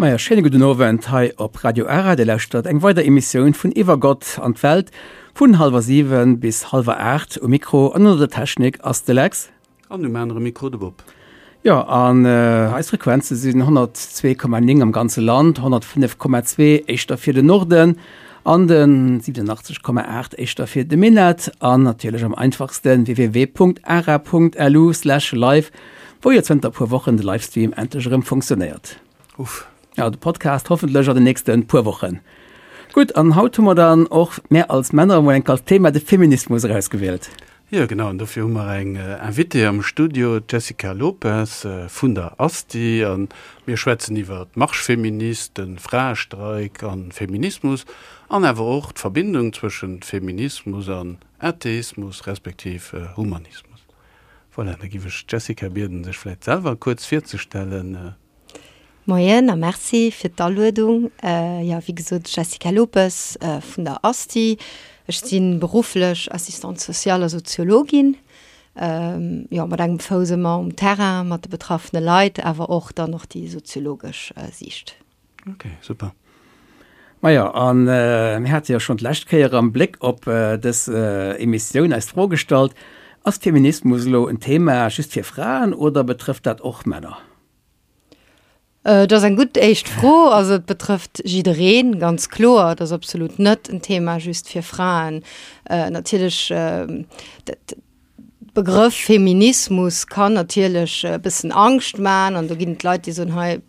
Maja, schéine gudden Owend hei op Radio Ara. Dir lauschtert eng weider Emissioun vun Iwwer Gott an d'Welt vun hallwer 7 bis hallwer 8. Um Mikro an ënner der Technik ass de Lex. An um anere Mikro de Bob. Jo, an eis Frequenze sinn 102,9 am ganze Land, 105,2 éischter fir den Norden an de 87,8 éischter fir de Minett an natierlech am einfachste www.ara.lu/live, wou jo zënter e puer Wochen de Livestream endlech erëm funktionéiert. Uff. Ja, de Podcast hoffentlech an den nächste puer Wochen. Gutt, an haut hu mer dann och mär als Männer emol enk als Thema de Feminismus erausgewielt. Jo genau, an dofir hu mer eng Invitée am Studio, d'Jessica Lopes vun der ASTI. A mir schwätzen iwwer d'Marche féministe, de Fraestreik a Feminismus an awer och d'Verbindung zwëschent Feminismus an Atheismus respektiv Humanismus. Voilà, da giff ech d'Jessica bieden, sech vläit selwer kuerz virzestellen. Moien a Merci fir d'Aluedung. Jo, wéi gesot, Jessica Lopes vun der ASTI. Ech si berufflech Assistante sociale a Soziologin. Jo, mat engem Fouss ëmmer um Terrain mat de betraffene Leit, awer och dann och déi soziologesch Siicht. Ok, super. Majo, a mir hate jo schonn d'lescht Kéier am Bléck op dës Emissioun eis d'Fro gestallt, Ass Feminismus elo en Thema just fir Fraen oder betrëfft dat och Männer? Et ass eng gutt éischt Fro. Also et betrëfft jiddereen, ganz kloer. Et ass absolut net en Thema just fir Fraen. Natierlech, dat Begrëff Feminismus kann natierlech e bëssen Angscht man an do ginn et Leit, déi soen, hei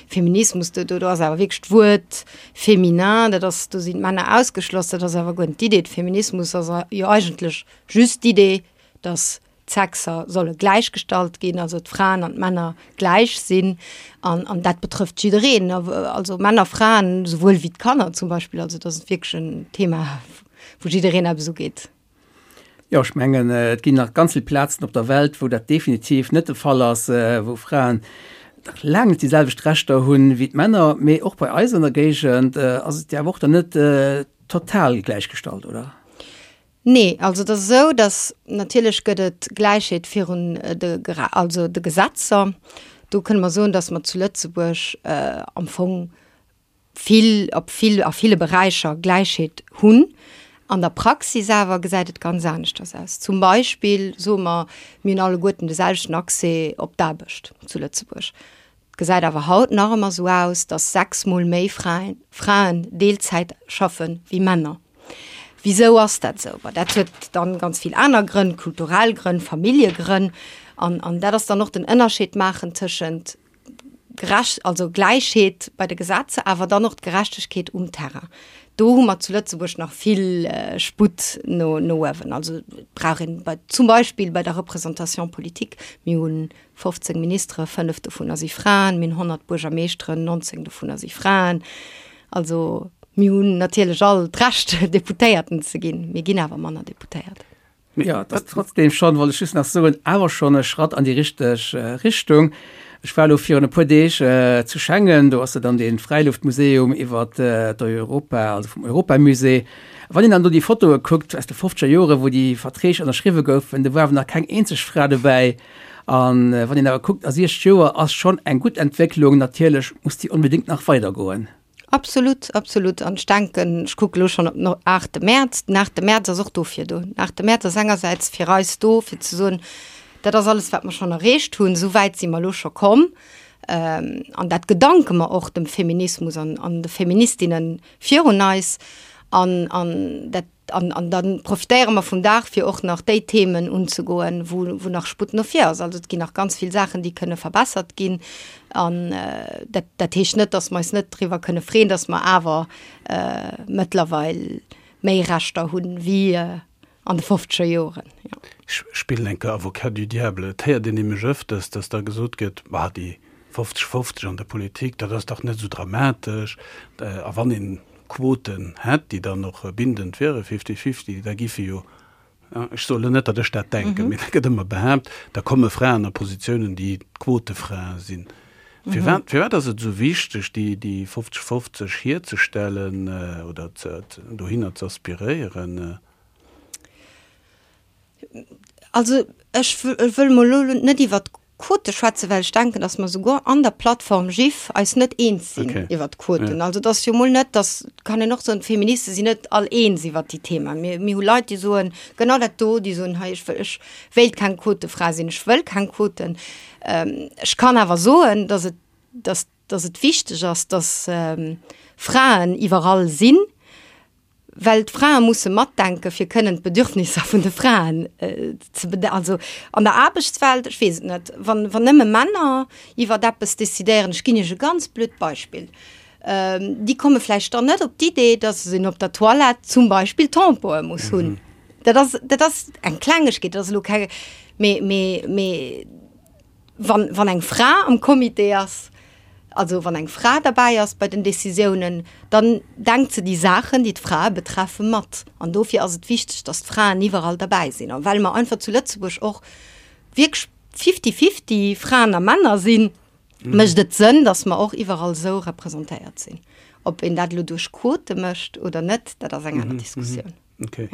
Feminismus, do do ass awer wierklech d'Wuert féminin, dat ass, do sinn d'Männer ausgeschloss. Dat ass awer guer net d'Idee. Feminismus ass jo eigentlech just d'Idee, datt d'Sexer solle gläichgestallt ginn, also d'Fraen an d'Männer gläich sinn. An, an dat betrëfft jiddereen, also Männer, Fraen, souwuel wéi d'Kanner zum Beispill. Also dat ass wierklech en Thema, wou jiddereen eppes ugeet. Jo, ech mengen, et ginn nach ganz vill Plazen op der Welt, wou dat definitiv net de Fall ass, wou Fraen nach laang net déi selwecht Rechter hunn wéi d'Männer. Mee och bei eis an der Géigend ass et jo awer och dann net total gläichgestallt, oder? Nee, also et ass esou, datt natierlech gëtt et Gläichheet virun de, also de Gesetzer. Do kënne mer soen, datt mer zu Lëtzebuerg am Fong vill, op vill, a ville Beräicher Gläichheet hunn. An der Praxis awer gesäit et ganz aneschters aus. Zum Beispill soe mer, mir hunn alleguerten de selwechten Accès op d'Aarbecht zu Lëtzebuerg. Et gesäit awer haut nach ëmmer esou aus, dass 6 mol méi Fraen Fraen Deelzäit schaffe wéi Männer. Wisou ass dat esou? Bon, dat huet dann ganz vill aner Grënn, kulturell Grënn, Familljegrënn. An, an dat ass dann och den Ënnerscheed maachen tëschent gerecht, also Gläichheet bei de Gesetzer, awer dann och d'Gerechtegkeet um Terrain. Do hu mer zu Lëtzebuerg nach vill Sputt no, no uewen. Also et brauch een bei, zum Beispill bei der Représentation politique, mir hunn 15 Ministere, 5 dovunner si Fraen, mir hunn 100 Buergermeeschteren, 19 dovunner si Fraen. Also mir hunn natierlech all d'Recht, Deputéierten ze ginn, mir ginn awer manner Deputéiert. Jo, et ass trotzdem schonn, wollt ech just nach soen, awer schonn e Schratt an déi richteg Richtung. Ech war elo virun e puer Deeg zu Schengen, do ass jo dann dee Fräiluftmuseum iwwer d'Europa, also vum Europamusée. Wann een dann do déi Fotoe kuckt aus de fofzeger Joren, wou déi Verträg ënnerschriwwe goufen, do war awer nach keng eenzeg Fra dobäi. A wann een awer kuckt, a 60 Joer ass schonn eng gutt Entwécklung. Natierlech muss déi onbedéngt nach weidergoen. Absolut, absolut. An ech denken, ech kucke elo schonn op den aachte Mäerz. Den aachte Mäerz ass och dofir do. Den aachte Mäerz ass engersäits fir eis do, fir ze soen, dat ass alles, wat mer schonn erreecht hunn, esou wäit si mer elo scho komm. An dat gedanke mer och dem Feminismus an an de Feministinne virun eis. An an dat An, an da profitéiere mer vum Dag, fir och nach déi Themen unzegoen, wou, wou nach Sputt no vir ass. Also et ginn nach ganz vill Saachen, déi kënne verbessert ginn. An dat, dat heescht net, dass mer eis net driwwer kënne freeën, dass mer awer mëttlerweil méi Rechter hunn wéi an de fofzeger Joren, jo. Ech spillen eng Kéier Avocat du diable. Et héiert een nämlech ëfters, dass da gesot gëtt, Ma déi 50, 50 an der Politik, dat ass dach net esou dramatesch. A wann een Quoten hätt, déi dann och bindend wieren, fifty-fifty, da giffe jo, ech soen elo net, datt ech dat denken, mee dat gëtt ëmmer behaapt, da komme Fraen a Positiounen, déi Quotefrae sinn. Firwat, firwat ass et esou wichteg, déi, déi 50, 50 hierzestellen oder ze, dohinner ze aspiréieren? Also ech wëll mol elo net iwwert. Quote schwätzen, well ech denken, datt mer souguer an der Plattform GIF eis net eens sinn Okay. iwwert d'Quoten. Ja. Also et ass jo mol net, datt, kann een och soen, d'Feministe sinn net all eens iwwert déi Thema. Mir, mir hu Leit, déi soen genau dat do, déi soen, hei ech wëll, ech wéilt keng Quotefra sinn, ech wëll keng Quoten. Ech kann awer soen, datt et, datt, datt et wichteg ass, datt Fraen iwwerall sinn, well d'Frae musse matdenken, fir kënnen d'Bedürfnisser vun de Fraen ze bede-, also an der Aarbechtswelt, ech weess et net, wann, wann nëmme Männer iwwert eppes decidéieren, ech ginn Iech e ganz blöd Beispill, déi komme vläicht dann net op d'Idee, dass een op der Toilette zum Beispill Tampoe muss hunn. Dat ass, dat ass eng Klengegkeet, dat ass elo keng, mee, mee, mee. Wann, wann eng Fra am Comité ass, also wann eng Fra derbäi ass bei den Décisiounen, dann denkt se déi Saachen, déi d'Frae betreffen, mat. An dofir ass et wichteg, dass d'Fraen iwwerall derbäi sinn. A well mer einfach zu Lëtzebuerg och wierklech fifty-fifty Fraen a Männer sinn, mécht et Sënn, dass mer och iwwerall esou representéiert sinn. Ob een dat elo duerch Quote mécht oder net, dat ass eng aner Diskussioun. Okay.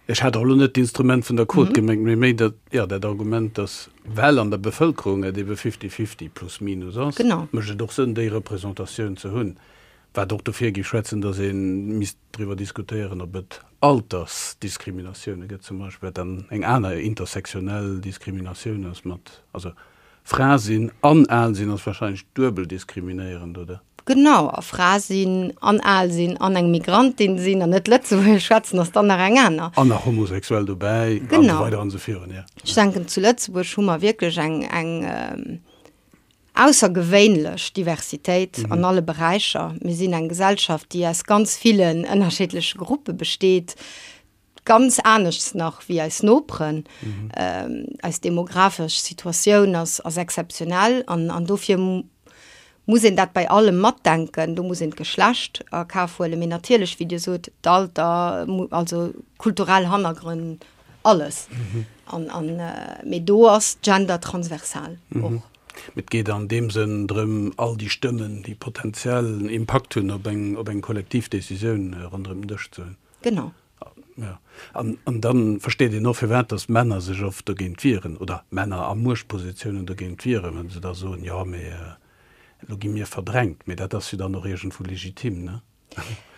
Ech hat och elo net d'Instrument vun der Quot gemengt, mee méi dat, jo, dat Argument, dass, well an der Bevëlkerung et ebe fifty-fifty plus minus ass, mécht et och Sënn, déi Représentatioun ze hunn. Wat och dofir géif schwätzen, dass ee misst driwwer diskutéieren, ob et Altersdiskriminatioune gëtt zum Beispill, wat dann eng aner intersektionell Diskriminatioun ass mat, also Fra sinn an al sinn ass wahrscheinlech duebel diskriminéierend, oder? Genau, a Fra sinn an al sinn an eng Migrantin sinn an net Lëtzebuergesch schwätzen ass dann nach eng aner. An nach homosexuell dobäi an esou weider an esou virun, jo. Ech denken, zu Lëtzebuerg hu mer wierklech eng, eng aussergewéinlech Diversitéit an alle Beräicher. Mir sinn eng Gesellschaft, déi aus ganz villen ënnerschiddleche Gruppe besteet. Ganz aneschts nach wéi eis Noperen. Eis demografesch Situatioun ass ass exzeptionell an an dofir muss een dat bei allem matdenken. Do muss een d'Geschlecht a Kaf huelen, mee natierlech, wéi Dir sot, d'Alter, also kulturell Hannergrënn, alles. An an mee do ass Gender transversal och. Mee et geet an deem Sënn drëm, all déi Stëmmen, déi potenziell Impakt hunn op eng op eng kollektiv Decisioun, ronderëm den Dësch ze hunn. Genau. Ja. An, an dann versteet een och, firwat dass Männer sech oft dogéint wieren, oder Männer a Muechtpositiounen dogéint wieren, wa se da soen, jo, mee elo gi mir verdrängt. Mee dat ass jo dann och iergendwou legitim, ne?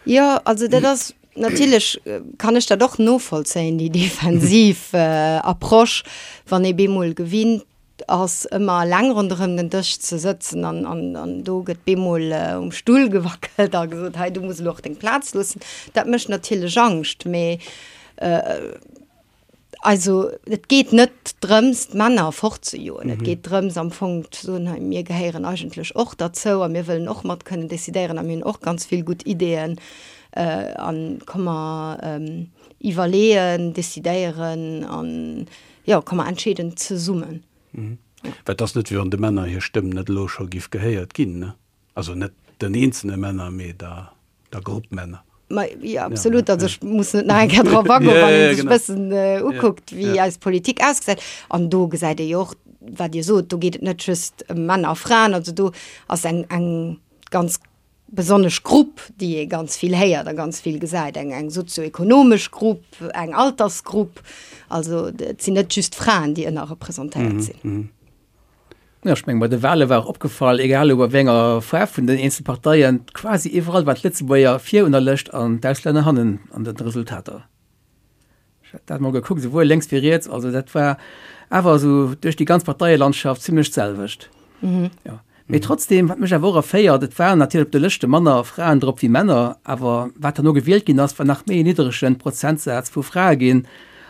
Jo, also dat ass natierlech, kann ech dat och novollzéien, déi defensiv Approche, wann ee bemol gewinnt ass ëmmer eleng ronderëm den Dësch ze sëtzen an, an, an do gëtt bemol um Stull gewackelt a gesot, hei du muss elo och deng Plaz loossen. Dat mécht natierlech Angscht, mee also et geet net drëms d'Männer fortzejoen. Et geet drëms am Fong ze soen, hei mir gehéieren eigentlech och derzou a mir wëllen och mat kënnen decidéieren a mir hunn och ganz vill gutt Ideeën an komm mer iwwerleeën, decidéieren an Jo, komm mer entscheeden zesummen. Well et ass net, wéi wann de Männer hir Stëmm net elo scho giff gehéiert ginn, ne? Also net den eenzelne Männer, mee der, der Grupp Männer. Ma jo, absolut. Also ech muss net nach eng Kéier drop agoen, wann ee sech e bëssen ukuckt, wéi eis Politik ausgesäit. An do gesäit ee jo och, wat Dir sot, do geet et net just ëm Männer a Fraen. Also do ass eng, eng ganz besonnesch Grupp, déi ee ganz vill héiert a ganz vill gesäit, eng eng sozioekonomesch Grupp, eng Altersgrupp. Also et sinn net just Fraen, déi ënnerrepresentéiert sinn. Jo, ech mengen, bei de Wale war och opgefall, egal elo bei wéi enger Faarf vun den eenzele Parteien, quasi iwwerall waren d'Lëtzebuerger vir un der Lëscht an d'Auslänner hannen an den Resultater. Ech hat dat mol gekuckt, esouwuel lénks wéi riets, also dat war awer esou duerch déi ganz Parteielandschaft zimlech d'selwecht. Mhm. Ja. Mee trotzdem, wat mech awer och erféiert, et waren natierlech op de Lëschte manner Fraen drop wéi Männer, awer wat herno gewielt ginn ass, war nach méi en niddregen Prozentsaz vu Frae ginn.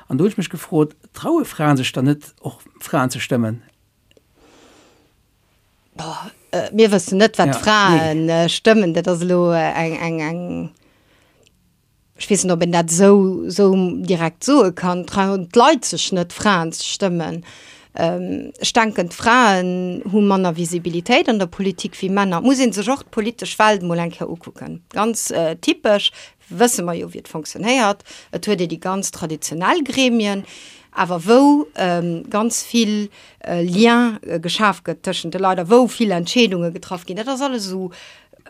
An do hunn ech mech gefrot, traue Fraen sech dann net och Fraen ze stëmmen? Boah, mir wëssen net, wat d'Frae stëmmen, dat ass elo eng, eng, eng. Ech weess net, ob een dat esou, esou direkt soe kann. Trauen d'Leit sech net, Fraen ze stëmmen? Ech denken, d'Fraen hu manner Visibilitéit an der Politik wéi Männer. Et muss ee sech och d'politesch Welt mol eng Kéier ukucken. Ganz typesch wësse mer jo, wéi et fonctionnéiert. Et huet ee déi ganz traditionell Gremien, awer wou ganz vill Lien geschaf gëtt tëschent de Leit a wou vill Entscheedunge getraff ginn. Dat ass alles esou.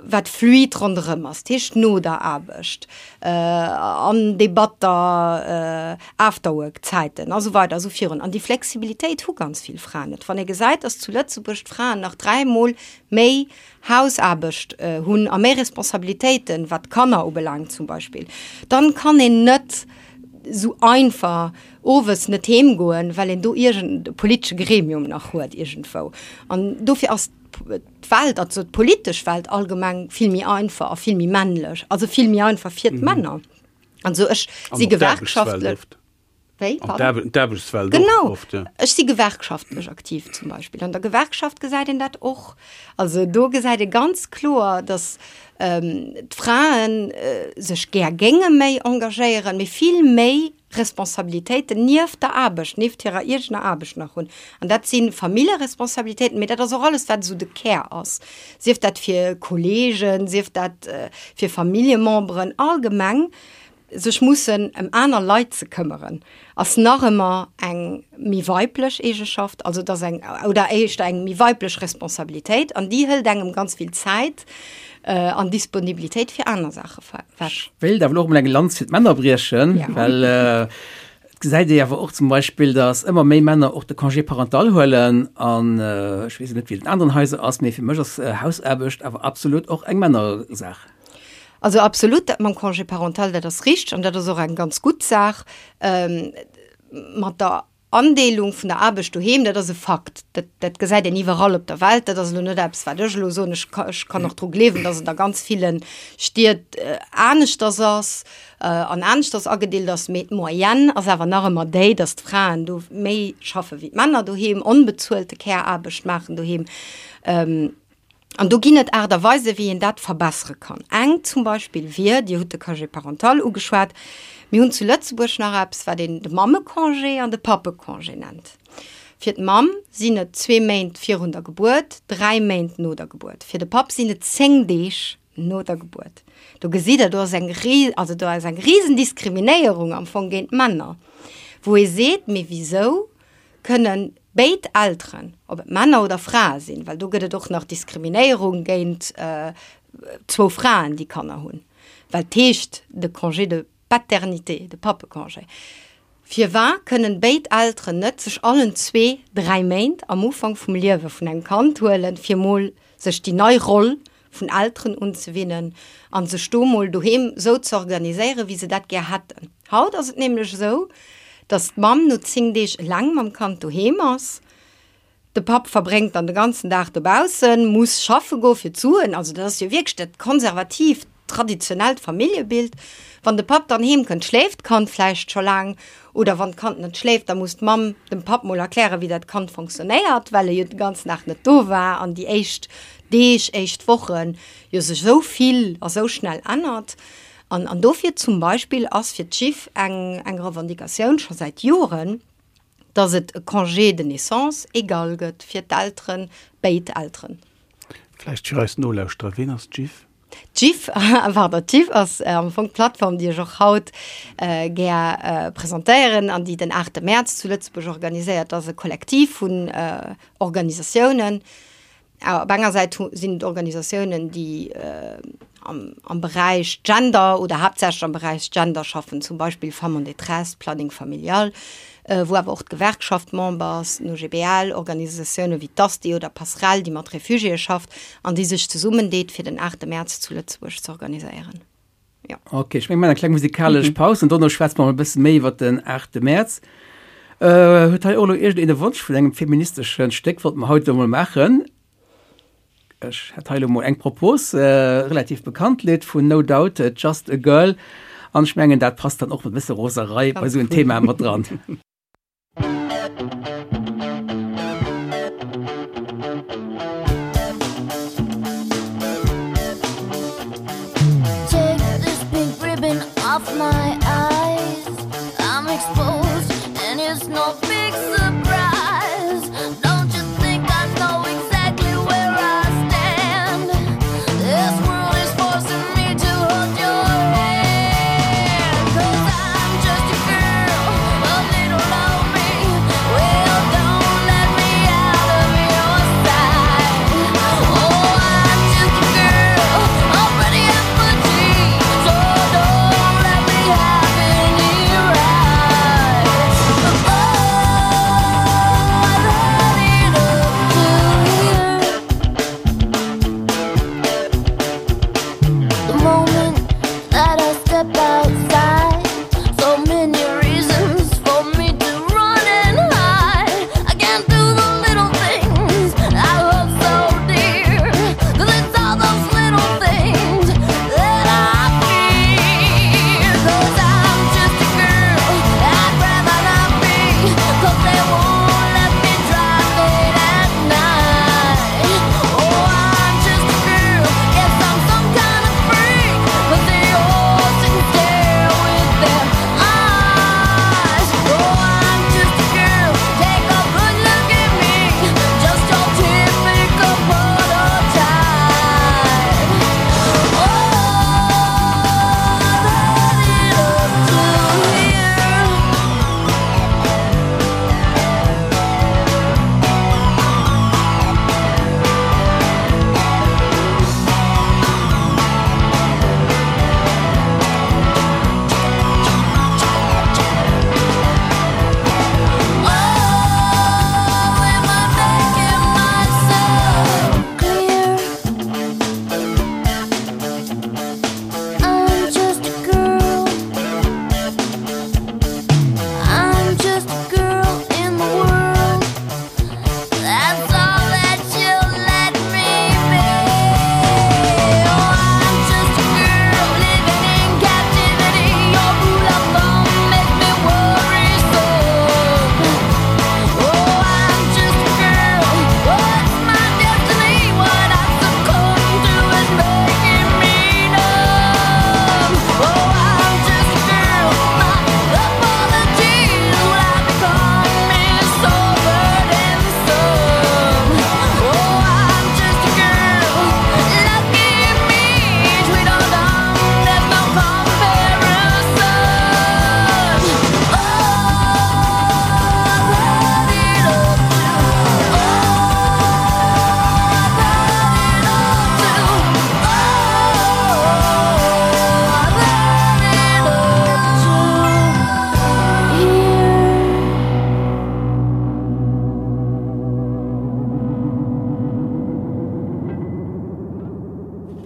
wat fluid ronderëm ass, dat heescht no der Aarbecht, an Debatter, Afterwork-Zäiten a sou weider a sou virun. An déi Flexibilitéit hu ganz vill Fraen net. Wann ee gesäit, dass zu Lëtzebuerg d'Fraen nach dräimol méi Hausaarbecht hunn a méi Responsabilitéiten, wat d'Kanner ubelaangt zum Beispill, dann kann een net esou einfach owes net heem goen, well een do iergend e politesche Gremium nach huet iergendwou. An dofir ass d'Welt, also d'politesch Welt allgemeng vill méi einfach a vill méi männlech, also vill méi einfach fir d'Männer. Also ech si Gewerkschaftlech. Wéi? Pardon? D'Aarbechtswelt och oft, ja. Ech si gewerkschaftlech aktiv zum Beispill. An der Gewerkschaft gesäit een dat och. Also do gesäit ee ganz kloer, datt d'Frae sech gär géinge méi engagéieren, mee vill méi Responsabilitéiten nieft der Aarbecht, nieft hirer eegener Aarbecht nach hunn. An dat si Familljeresponsabilitéiten, mee dat ass och alles, wat esou de Kär ass, sief dat fir Kolleegen, sief dat fir Familljememberen, allgemeng sech mussen ëm aner Leit ze këmmeren, ass nach ëmmer eng méi weiblech Eegeschaft, also et ass eng, oder éischter eng méi weiblech Responsabilitéit an déi hëlt engem ganz vill Zäit an Disponibilitéit fir aner Saache wech. Ech wéilt awer elo och mol eng Lanz fir d'Männer briechen, well et gesäit ee awer och zum Beispill, datt ëmmer méi Männer och de Congé parental huelen an ech weess net, wéi et an aneren Haiser ass, mee fir mech ass Hausaarbecht awer absolut och eng Männersaach. Also absolut, dat mam Congé parental, dat ass richteg an dat ass och eng ganz gutt Saach. Mat der Andeelung vun der Aarbecht doheem, dat ass e Fakt, dat, dat gesäit een iwwerall op der Welt. Dat ass elo net eppes, wat ech elo soen. Ech ka, ech kann och dru gleewen, datt et a ganz ville Stied aneschters ass an aneschters agedeelt ass, mee d'Moyenne ass awer nach ëmmer déi, datt d'Fraen do méi schaffe wéi d'Männer doheem, onbezuelte Care-Aarbecht maachen doheem. An do ginn et Aart a Weisen, wéi een dat verbessere kann. Eng zum Beispill wier, Dir hutt de Congé parental ugeschwat, mir hunn zu Lëtzebuerg nach eppes, wat een de Mammecongé an de Pappecongé nennt. Fir d'Mamm sinn et zwee Méint virun der Gebuert, dräi Méint no der Gebuert. Fir de Papp sinn et zéng Deeg no der Gebuert. Do gesitt Der, do ass eng, also do ass eng Risendiskriminéierung am Fong géint d'Männer, wou ee seet, Mee wisou kënnen béid Elteren, ob et Männer oder Frae sinn, well do gëtt et och nach Diskriminéierung géint zwou Fraen, déi Kanner hunn, well et heescht de Congé de paternité, de Pappecongé. Firwat kënnen béid Elteren net sech allen zwee dräi Méint am Ufank vum Liewe vun engem Kand huelen, fir mol sech déi nei Roll vun Elteren unzewinnen an sech do mol doheem sou ze organiséieren, wéi se dat gär hätten. Haut ass et nämlech esou, dass d'Mamm no 10 Deeg eleng mam Kand doheem ass, de Papp verbréngt dann de ganzen Dag dobaussen, muss schaffe goe fir d'Suen, also dat ass jo wierklech dat konservatiivt, traditionellt Familljebild. Wann de Papp dann heem kënnt, schléift d'Kand vläicht scho laang, oder wann d'Kand net schléift, da muss d'Mamm dem Papp mol erklären, wéi dat Kand fonctionnéiert, well e jo de ganzen Dag net do war an déi éischt Deeg, éischt Wochen jo sech esou vill a sou schnell ännert. An, an dofir zum Beispill ass fir d'Jiff eng, eng Revendicatioun scho säit Joren, dass et e Congé de naissance égal gëtt fir d'Elteren, béid Elteren. Vläicht fir eis Nolauschterer, Ween ass d'Jiff? D'Jiff, pardon, d'Jiff ass am Fong d'Plattform, déi ech och haut gär presentéieren an déi den 8 Mäerz zu Lëtzebuerg organiséiert ass, e Kollektiv vun Organisatiounen. Op enger Säit sinn et Organisatiounen, déi am Beräich Gender oder haaptsächlech am Beräich Gender schaffen, zum Beispill Femmes en détresse, Planning familial, wou awer och d'Gewerkschaft Member ass, den OGBL, Organisatioune wéi d'ASTI oder Passerell, déi mat Refugiéë schafft an déi sech zesummendeet, fir den 8 Mäerz zu Lëtzebuerg ze organiséieren. Jo. Ok, ech menge mir maachen eng kleng musikalesch Paus an dono schwätze mer e bësse méi iwwer den 8 Mäerz. Huet hei och elo iergendeen e Wonsch vun engem feministesche Stéck? Wollte mer haut elo mol maachen. Ech hätt hei elo mol eng Propos, relativ bekannt Lidd vun No Doubt, Just a Girl. An ech mengen, dat passt dann och mat e bësse Roserei bei esou en Thema mat dran.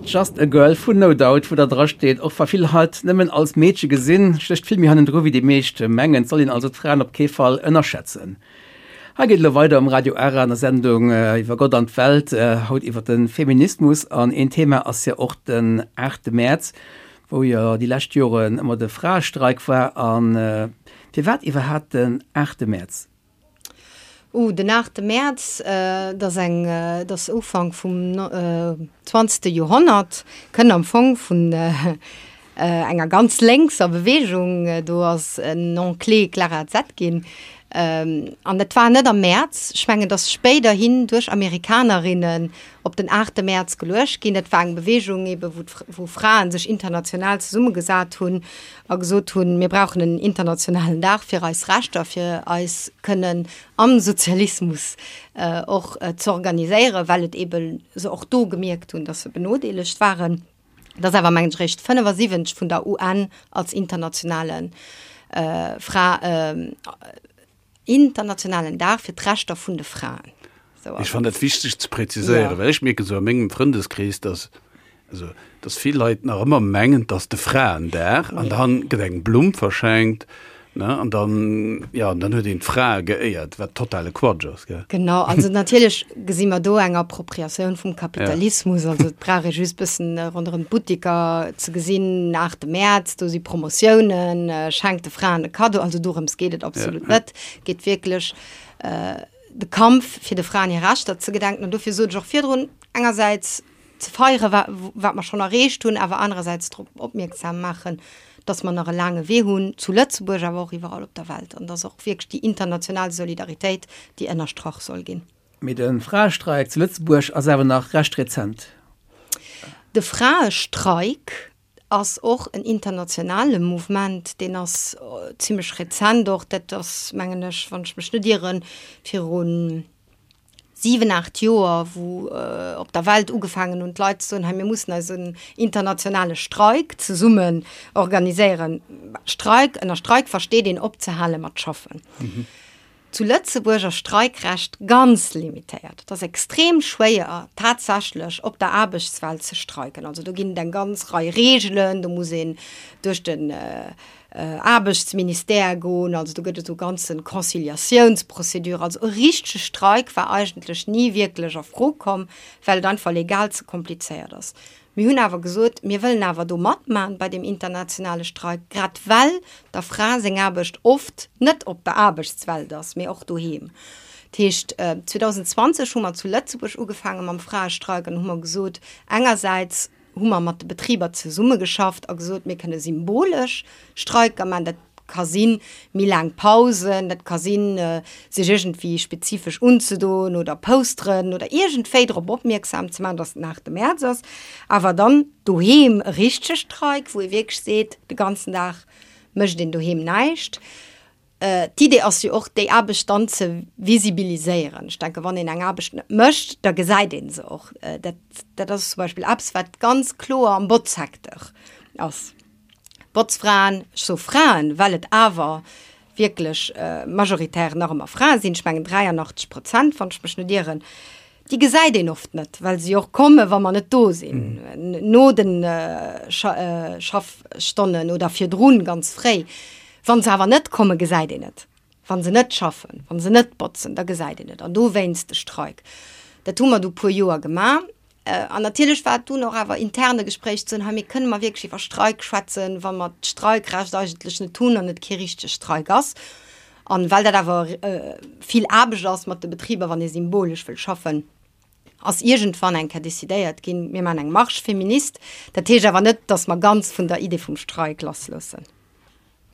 Just a Girl vun No Doubt, wou da dra steet, och wa vill Leit nëmmen als Meedche gesinn, stécht vill méi hannendru wéi déi meescht mengen. Et soll een also d'Fraen op kee Fall ënnerschätzen. Hei geet et elo weider um Radio Ara an der Sendung iwwer Gott an d'Welt, haut iwwer de Feminismus. An een Thema ass jo och den 8 Mäerz, wou jo déi lescht Joren ëmmer de Fraestreik war. A firwat iwwerhaapt den 8 Mäerz? Uh, den 8 Mäerz, dat ass eng, dat ass Ufank vum zwanzegste Joerhonnert, kënnt am Fong vun enger ganz lénkser Beweegung, do ass en Nom clé Clara Zetkin. An dat war net am Mäerz, ech mengen, et ass spéiderhin duerch Amerikanerinnen op den 8 Mäerz geluecht ginn. Dat war eng Beweegung ebe wou wou Fraen sech international zesummegesat hunn a gesot hunn, mir brauchen en internationalen Dag fir eis Rechter, fir eis kënnen am Sozialismus och z'organiséieren, well et ebe se och do gemierkt hunn, datt se benodeelegt waren. Dat ass awer, mengen ech, eréischt 75 vun der UN als internationale Fra, internationalen Dag fir d'Rechter vun de Fraen. Ech fannen dat wichteg ze präziséieren, well ech mierken esou a mengem Frëndeskrees, dass, also, dass vill Leit nach ëmmer mengen, et ass de Fraendag an dann gëtt eng Blumm verschenkt, ne, an dann, jo, an dann huet een d'Frae geéiert, wat totale Quatsch ass, gell. Genau, also natierlech gesi mer do eng Appropriatioun vum Kapitalismus, also et brauch ee just bëssen ronderëm d'Buttiker ze gesinn, 8 Mäerz, do si Promotiounen, schenkt de Fraen e Kaddo, also dorëms geet et absolut net, geet wierklech de Kampf fir de Fraen hir Rechter ze gedenken an dofir sot ech och virdrun, engersäits ze feiere wat mer schonn erreecht hunn, awer anerersäits drop opmierksam maachen, dass mer nach e laange Wee hunn, zu Lëtzebuerg, awer och iwwerall op der Welt, an dass och wierklech déi international Solidaritéit, déi ënnerstrach soll ginn. Mee de Fraestreik zu Lëtzebuerg ass awer nach recht rezent. De Fraestreik ass och en internationale Mouvement, deen ass zimlech rezent och, dat ass mengen ech, wann ech mech net ieren, virun 7, 8 Joer, wou op der Welt ugefaangen hunn d'Leit ze soen, hei mir mussen eis en internationale Streik zesummen organiséieren. Streik, ënner Streik versteet een opzehale mat schaffen. Zu Lëtzebuerg ass Streikrecht ganz limitéiert. Et ass extrem schwéier tatsächlech op der Aarbechtswelt ze streiken. Also do ginn et eng ganz Rei Reegelen, do muss een duerch den Aarbechtsministère goen, also do gëtt et esou ganze Conciliatiounsprocédure. Also e richtege Streik war eigentlech ni wierklech a Fro komm, well et einfach legal ze komplizéiert ass. Mir hunn awer gesot, mir wëllen awer do matmachen bei deem internationale Streik, grad well der Fra seng Aarbecht oft net op der Aarbechtswelt ass, mee och doheem. Dat heescht, 2020 hu mer zu Lëtzebuerg ugefaange mam Fraestreik an hu mer gesot, engersäits, hu mer mat de Betriber zesummegeschafft a gesot, mir kënne symbolesch Streiker maachen. Dat ka sinn, méi laang Pausen, dat ka sinn, sech iergendwéi spezifesch unzedoen oder Posteren oder iergendwéi drop opmierksam ze maachen, dass den 8 Mäerz ass. Awer dann doheem e richtege Streik, wou ee wierklech seet, de ganzen Dag mécht een doheem näischt. D'Idee ass jo och, déi Aarbecht dann ze visibiliséieren. Ech denken, wann een eng Aarbecht net mécht, da gesäit ee se och. Dat, dat ass zum Beispill eppes, wat ganz kloer am Botzsecteur ass. Botzfraen, ech soe Fraen, well et awer wierklech majoritär nach ëmmer Frae sinn, ech mengen 83 Prozent, wann ech mech net ieren, Déi gesäit een oft net, well se jo och komme wa mer net do sinn, no de Schaffstonnen oder virdrun ganz fréi. Wa se awer net kommen, gesäit een et. Wa se net schaffen, wa se net botzen, da gesäit een et. An dowéinst de Streik. Dat hu mer du puer Joer gemaach. An natierlech war et dunn och awer interne Gespréich ze hunn, hei mir kënne mer wierklech iwwer Streik schwätzen, wa mer d'Streikrecht eigentlech net hunn an et kee richtege Streik ass. An well dat awer vill Aarbecht ass mat de Betriber, wann ee symbolesch wëll schaffen, ass iergendwann eng Kéier decidéiert ginn, mir maachen eng Marche féministe. Dat heescht awer net, datt mer ganz vun der Idee vum Streik lassloossen.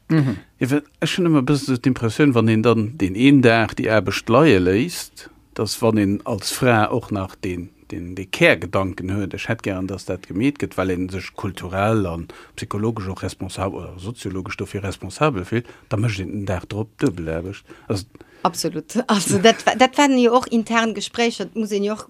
Jo, well ech hunn ëmmer e bëssen esou d'Impressioun, wann een dann deen een Dag déi Aarbecht leie léisst, datt wann een als Fra och nach deen, deen dee Kärgedanken huet, ech hätt gären, datt dat gemeet gëtt, well ee sech kulturell a psychologesch och responsabel oder soziologesch dofir responsabel fillt, da mécht een den Dag drop duebel Aarbecht. Also. Absolut. Also dat, dat waren jo och intern Gespréicher, dat muss een jo och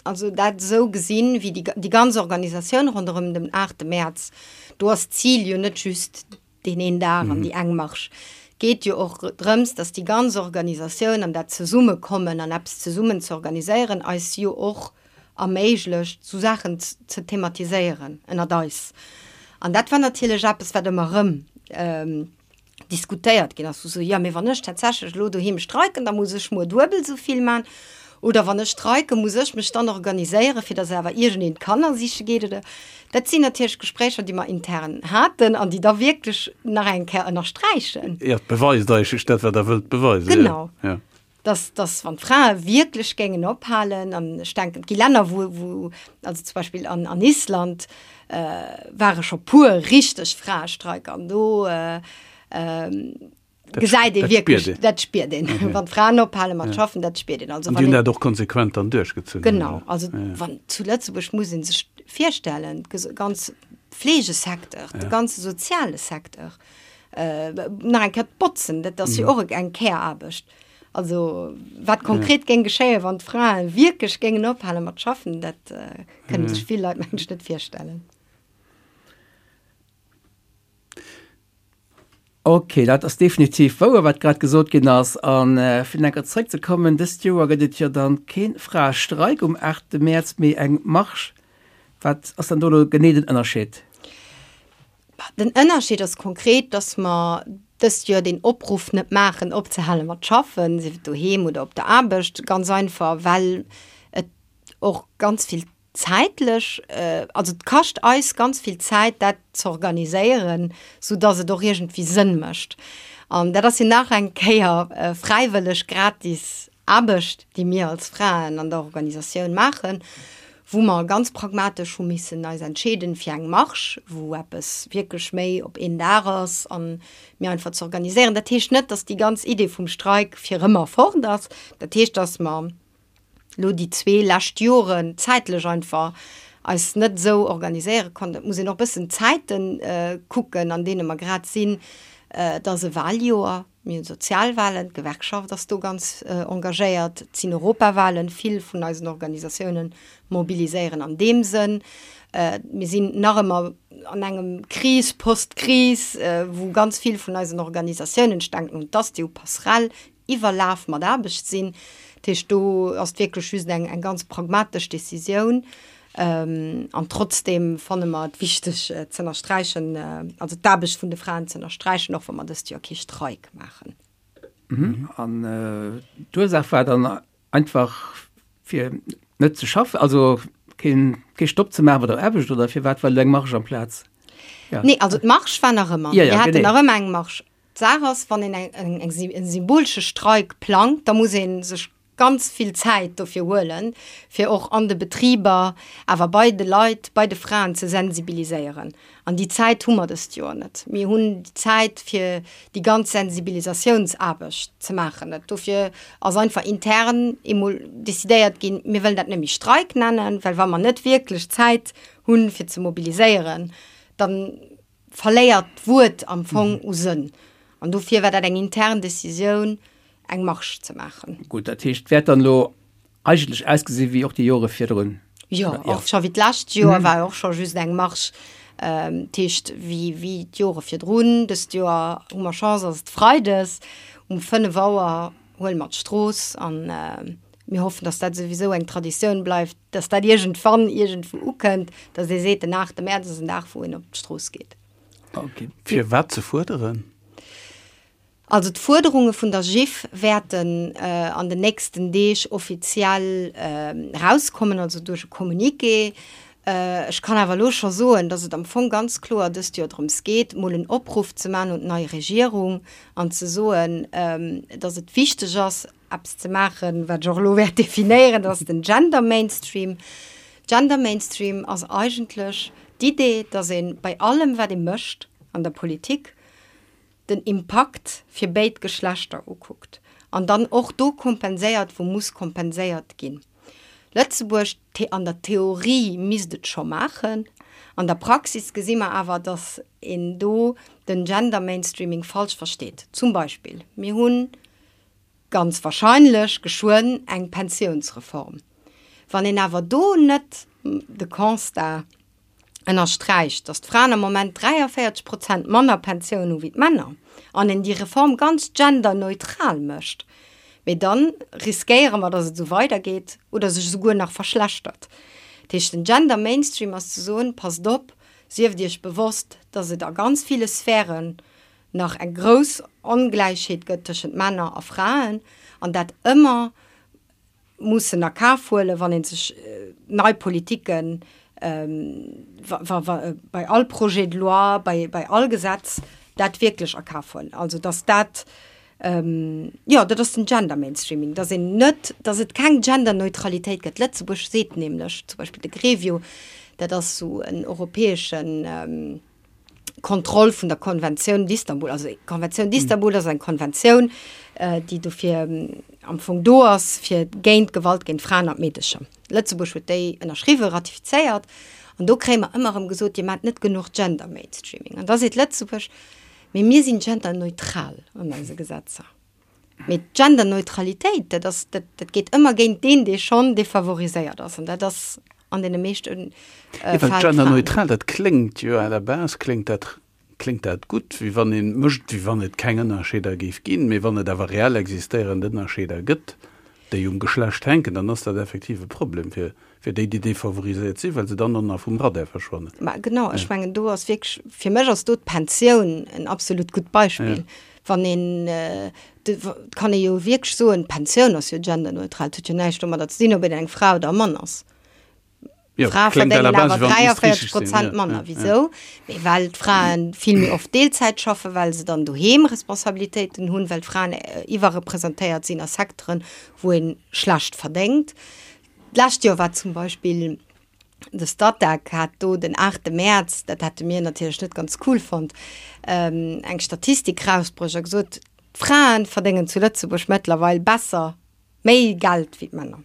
also dat esou gesinn, wéi déi, déi ganz Organisatioun ronderëm den 8. Mäerz, do ass d'Zil jo net just deen een Dag an déi eng Marsch. Geet jo och drëms, dass déi ganz Organisatioun an dat Zesummekommen an eppes zesummen ze organiséieren eis jo och. erméiglecht, sou Saachen ze thematiséieren ënnert eis. An dat war natierlech eppes, wat ëmmer erëm diskutéiert ginn ass, wou se, jo, mee wann ech tatsächlech elo doheem streiken, da muss ech muer duebel esou vill man. Oder wann ech streiken, muss ech mech dann organiséieren, fir datt awer iergendeen d'Kanner siche geet oder. Dat sinn natierlech Gespréicher, déi mer intern haten an déi da wierklech nach eng Kéier ënnersträichen. Jo, et beweist eigentlech dat, wat Der wëllt beweisen. Genau. Ja. Dass, dass wann d'Frae wierklech géingen ophalen, an ech denken, et gi Länner, wou, wou, also zum Beispill an, an Island, ware scho puer richteg Fraestreiker an do gesäit ee wierklech, dat spiert een, wann d'Fraen ophale mat schaffen, dat spiert een. Also wann een. An déi hunn dat och konsequent dann duerchgezunn. Genau, also wann zu Lëtzebuerg muss ee sech virstellen, de ganze Fleegesecteur, de ganze soziale Secteur, nach eng Kéier d'Botzen, dat ass jo och eng Care-Aarbecht. Also wat konkret géing geschéien, wann d'Frae wierklech géingen ophale mat schaffen, dat kënne sech vill Leit, mengen ech, net virstellen. Ok, dat ass definitiv wouer, wat grad gesot ginn ass. A fir nach eng Kéier zrëckzekommen, Dëst Joer gëtt et jo dann kee Fraestreik um 8 Mäerz, mee eng Marsch. Wat ass dann do elo genee den Ënnerscheed? Den Ënnerscheed ass konkret, dass mer dëst Joer deen Opruff net maachen, opzehale mat schaffen, sief et doheem oder op der Aarbecht, ganz einfach, well et och ganz vill zäitlech, also et kascht eis ganz vill Zäit, dat z'organiséieren, soudass et och iergendwéi Sënn mécht. An dat ass jo nach eng Kéier fräiwëlleg, gratis Aarbecht, déi mir als Fraen an der Organisatioun maachen, wou mer ganz pragmatesch hu missen eis entscheeden fir eng Marche, wou eppes wierklech méi op een Dag ass an mir einfach ze organiséieren. Dat heescht net, dass déi ganz Idee vum Streik fir ëmmer fort ass. Dat heescht, dass mer elo déi zwee lescht Joren zäitlech einfach eis net esou organiséiere konnten. Et muss een och e bëssen d'Zäiten kucken, an deene mer grad sinn. Et ass e Wahljoer. Mir hunn Sozialwahlen, d'Gewerkschaft ass do ganz engagéiert, et sinn Europawahlen, vill vun eisen Organisatiounen mobiliséieren an deem Sënn. Mir sinn nach ëmmer an engem Kris, Post-Kris, wou ganz vill vun eisen Organisatiounen, ech denken un d'Asti, u Passerell, iwwerlaf mat Aarbecht sinn. Dat heescht, do ass et wierklech just eng ganz pragmatesch Decisioun. An trotzdeem fanne mer et wichteg z'ënnersträichen, also d'Aarbecht vun de Fraen z'ënnersträichen, och wa mer dëst Joer kee Streik maachen. An d'Ursaach war dann einfach fir net ze schaffen, also kee Stopp ze maachen bei der Aarbecht oder firwat war elo eng Marge amplaz? Nee, also d'Marge war nach ëmmer. Mir haten nach ëmmer eng Marge. D'Saach ass, wann een eng e symbolesche Streik plangt, da muss ee sech ganz vill Zäit dofir huelen, fir och an de Betriber, awer bei de Leit, bei de Fraen ze sensibiliséieren. An déi Zäit hu mer dëst Joer net. Mir hunn déi Zäit, fir déi ganz Sensibilisatiounsaarbecht ze maachen, net. Dofir ass einfach intern emol decidéiert ginn, mir wëllen dat net méi Streik nennen, well wa mer net wierklech Zäit hunn, fir ze mobiliséieren, dann verléiert d'Wuert am Fong u Sënn. An dofir war dat eng intern Decisioun, eng Marche ze maachen. Gutt, dat heescht, et wäert dann elo eigentlech ausgesi wéi och déi Jore virdrun? Jo, och scho wéi d'lescht Joer war och scho just eng Marche. Dat heescht, wéi, wéi d'Jore virdrun. Dëst Joer hu mer Chance, ass et freides um 5 Auer huele mer d'Strooss an mir hoffen, dass dat souwisou eng Traditioun bleift, dass dat iergendwann iergendwou ukënnt, dass ee seet, den 8 Mäerz ass en Dag, wou een op d'Strooss geet. Okay. Fir wat ze fuerderen? Also d'Fuerderunge vun der GIF wäerten an den nächsten Deeg offiziell erauskommen, also duerch e Communiqué. Ech kann awer elo scho soen, dass et am Fong ganz kloer dëst Joer drëms geet, mol en Opruff ze maachen un d'nei Regierung an ze soen, dass et wichteg ass, eppes ze maachen, wat ech och elo wäert definéieren, dat ass den Gender Mainstream. Gender Mainstream ass eigentlech d'Idee, dass ee bei allem, wat ee mécht an der Politik, den Impakt fir béid Geschlechter ukuckt an dann och do kompenséiert, wou muss kompenséiert ginn. Lëtzebuerg, an der Theorie misst et scho maachen, an der Praxis gesi mer awer, dass een do den Gender Mainstreaming falsch versteet. Zum Beispill, mir hunn ganz wahrscheinlech geschwënn eng Pensiounsreform. Wann een awer do net de Constat ënnersträicht, datt d'Fraen am Moment 43 Prozent manner Pensioun hu wéi d'Männer, an een déi Reform ganz genderneutral mécht. Mee dann riskéiere mer, dass et esou weidergeet oder sech esouguer nach verschlechtert. Dat heescht, den Gender Mainstream ass ze soen, Passt op, sieft Iech bewosst, dass et a ganz ville Sphären nach eng grouss Ongläichheet gëtt tëschent Männer a Fraen an dat ëmmer mussen a Kaf huelen, wann ee sech nei Politiken, bei all Projet de loi, bei all Gesetz dat wierklech a Kaf huelen. Also dass dat, jo, dat ass den Gender Mainstreaming, dass een net, dass et keng Genderneutralitéit gëtt. Lëtzebuerg seet nämlech zum Beispill de Grevio, dat ass esou en europäeschen, Kontroll vun der Konventioun d'Istanbul. Also d'Konventioun d'Istanbul ass eng Konventioun, déi dofir am Fong do ass, fir géint d'Gewalt géint d'Fraen an d'Meedecher. Lëtzebuerg huet déi ënnerschriwwen, ratifizéiert. An do kréie mer ëmmer erëm gesot, Dir maacht net genuch Gender Mainstreaming. An da seet Lëtzebuerg, Mee mir sinn genderneutral an eise Gesetzer. Mee d'Genderneutralitéit, dat ass, dat, dat geet ëmmer géint deen, dee schonn defavoriséiert ass. An dat ass an deene meeschte Fäll d'Fra. Genderneutral, dat kléngt jo à la base kléngt dat, kléngt dat gutt, wéi wann ee mécht, wéi wann et keng Ënnerscheeder géif ginn. Mee wann et awer reell existéierend Ënnerscheeder gëtt, déi um Geschlecht hänken, dann ass dat effektiv e Problem fir, fir déi, déi defavoriséiert sinn, well se dann och nach vum Radar verschwannen. Ma genau, ech mengen do ass wierklech, fir mech ass do d'Pensioun en absolut gutt Beispill. Wann een, et kann ee jo wierklech soen, d'Pensioun ass jo genderneutral, et huet jo näischt domadder ze dinn, ob een eng Fra oder e Mann ass. Frae verdéngen awer 43 Prozent manner. Wisou? Mee well d'Frae vill méi oft Deelzäit schaffen, well se dann doheem Responsabilitéiten hunn, well d'Fraen iwwerrepresentéiert sinn a Secteuren, wou ee schlecht verdéngt. D'lescht Joer war zum Beispill de Statec hat do den 8 Mäerz, dat hätte mir natierlech net ganz cool fonnt, eng Statistik rausbruecht a gesot, d'Frae verdéngen zu Lëtzebuerg mëttlerweil besser, méi Geld wéi d'Männer.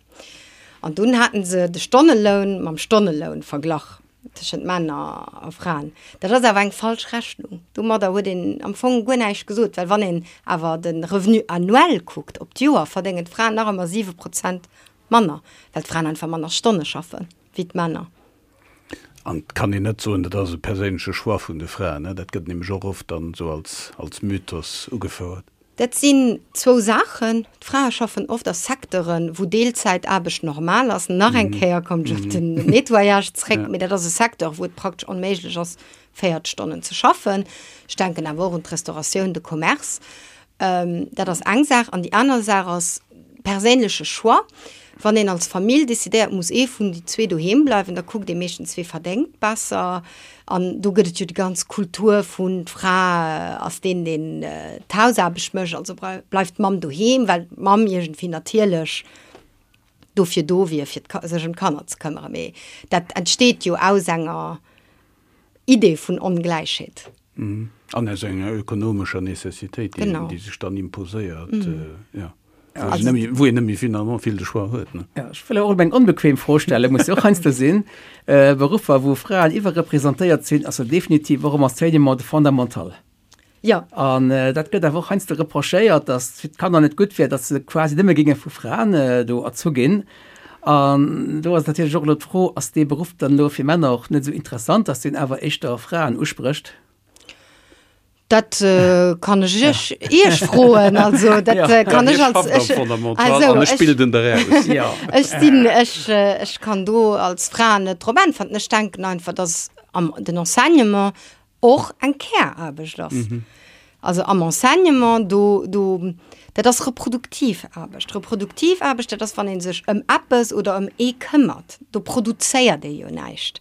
An dunn haten se de Stonneloun mam Stonneloun verglach tëschent Männer a Fraen. Dat ass awer eng falsch Rechnung. Domadder huet een am Fong guer näischt gesot, well wann een awer de Revenu annuel kuckt, op d'Joer, verdéngen d'Fraen nach ëmmer 7 Prozent manner, well d'Fraen einfach manner Stonne schaffe wéi d'Männer. An et kann een net soen, dat ass e perséinleche Choix vun de Fraen, ne? Dat gëtt nämlech och oft dann esou als, als Mythos ugefouert. Dat sinn zwou Saachen. D'Frae schaffen oft a Secteuren, wou Deelzäitaarbecht normal ass. Nach eng Kéier kommen ech op den Nettoyage zréck, mee dat ass e Secteur, wou et praktesch onméiglech ass, 40 Stonnen ze schaffen. Ech denken awer och un d'Restauratioun, de Commerce. Dat ass eng Saach. An déi aner Saach ass perséinleche Choix. Wann een als Famill decidéiert, muss ee vun déi zwee doheem bleiwen, da kuckt ee meeschtens, wee verdéngt besser. An do gëtt et jo déi ganz Kultur vun, d'Fra ass deen, deen d'Hausaarbecht mécht, also bleift d'Mamm doheem, well d'Mamm iergendwéi natierlech dofir do wier, fir sech ëm d'Kanner ze këmmere. Mee dat entsteet jo aus enger Idee vun Ongläichheet. An aus enger ökonomescher Necessitéit, déi sech dann imposéiert, jo, wou een net méi finalement vill de Choix huet. Jo, ech wëll och eng onbequem Fro stellen, muss jo och heiansdo sinn. Beruffer, wou Fraen iwwerrepresentéiert sinn, ass jo definitiv och am Enseignement de fondamental. Jo. An dat gëtt awer och heiansdo reprochéiert, datt et fir d'Kanner net gutt wier, datt se quasi nëmme géinge vu Fraen do erzu ginn. An do ass natierlech och elo d'Fro, ass dee Beruff dann elo fir Männer och net esou interessant, datt deen awer éischter Fraen usprécht? Dat kann ech iech, iech froen. Also dat kann ech als, ech, also ech bilden der aus. Ech sinn, ech, ech kann do als Fra net drop äntwerten. Ech denken einfach, datt am den Enseignement och eng Käraarbecht ass. Also am Enseignement, do, do, dat ass reproduktiv Aarbecht. Reproduktiv Aarbecht, dat ass, wann ee sech ëm eppes oder ëm ee këmmert. Do produzéiert ee jo näischt.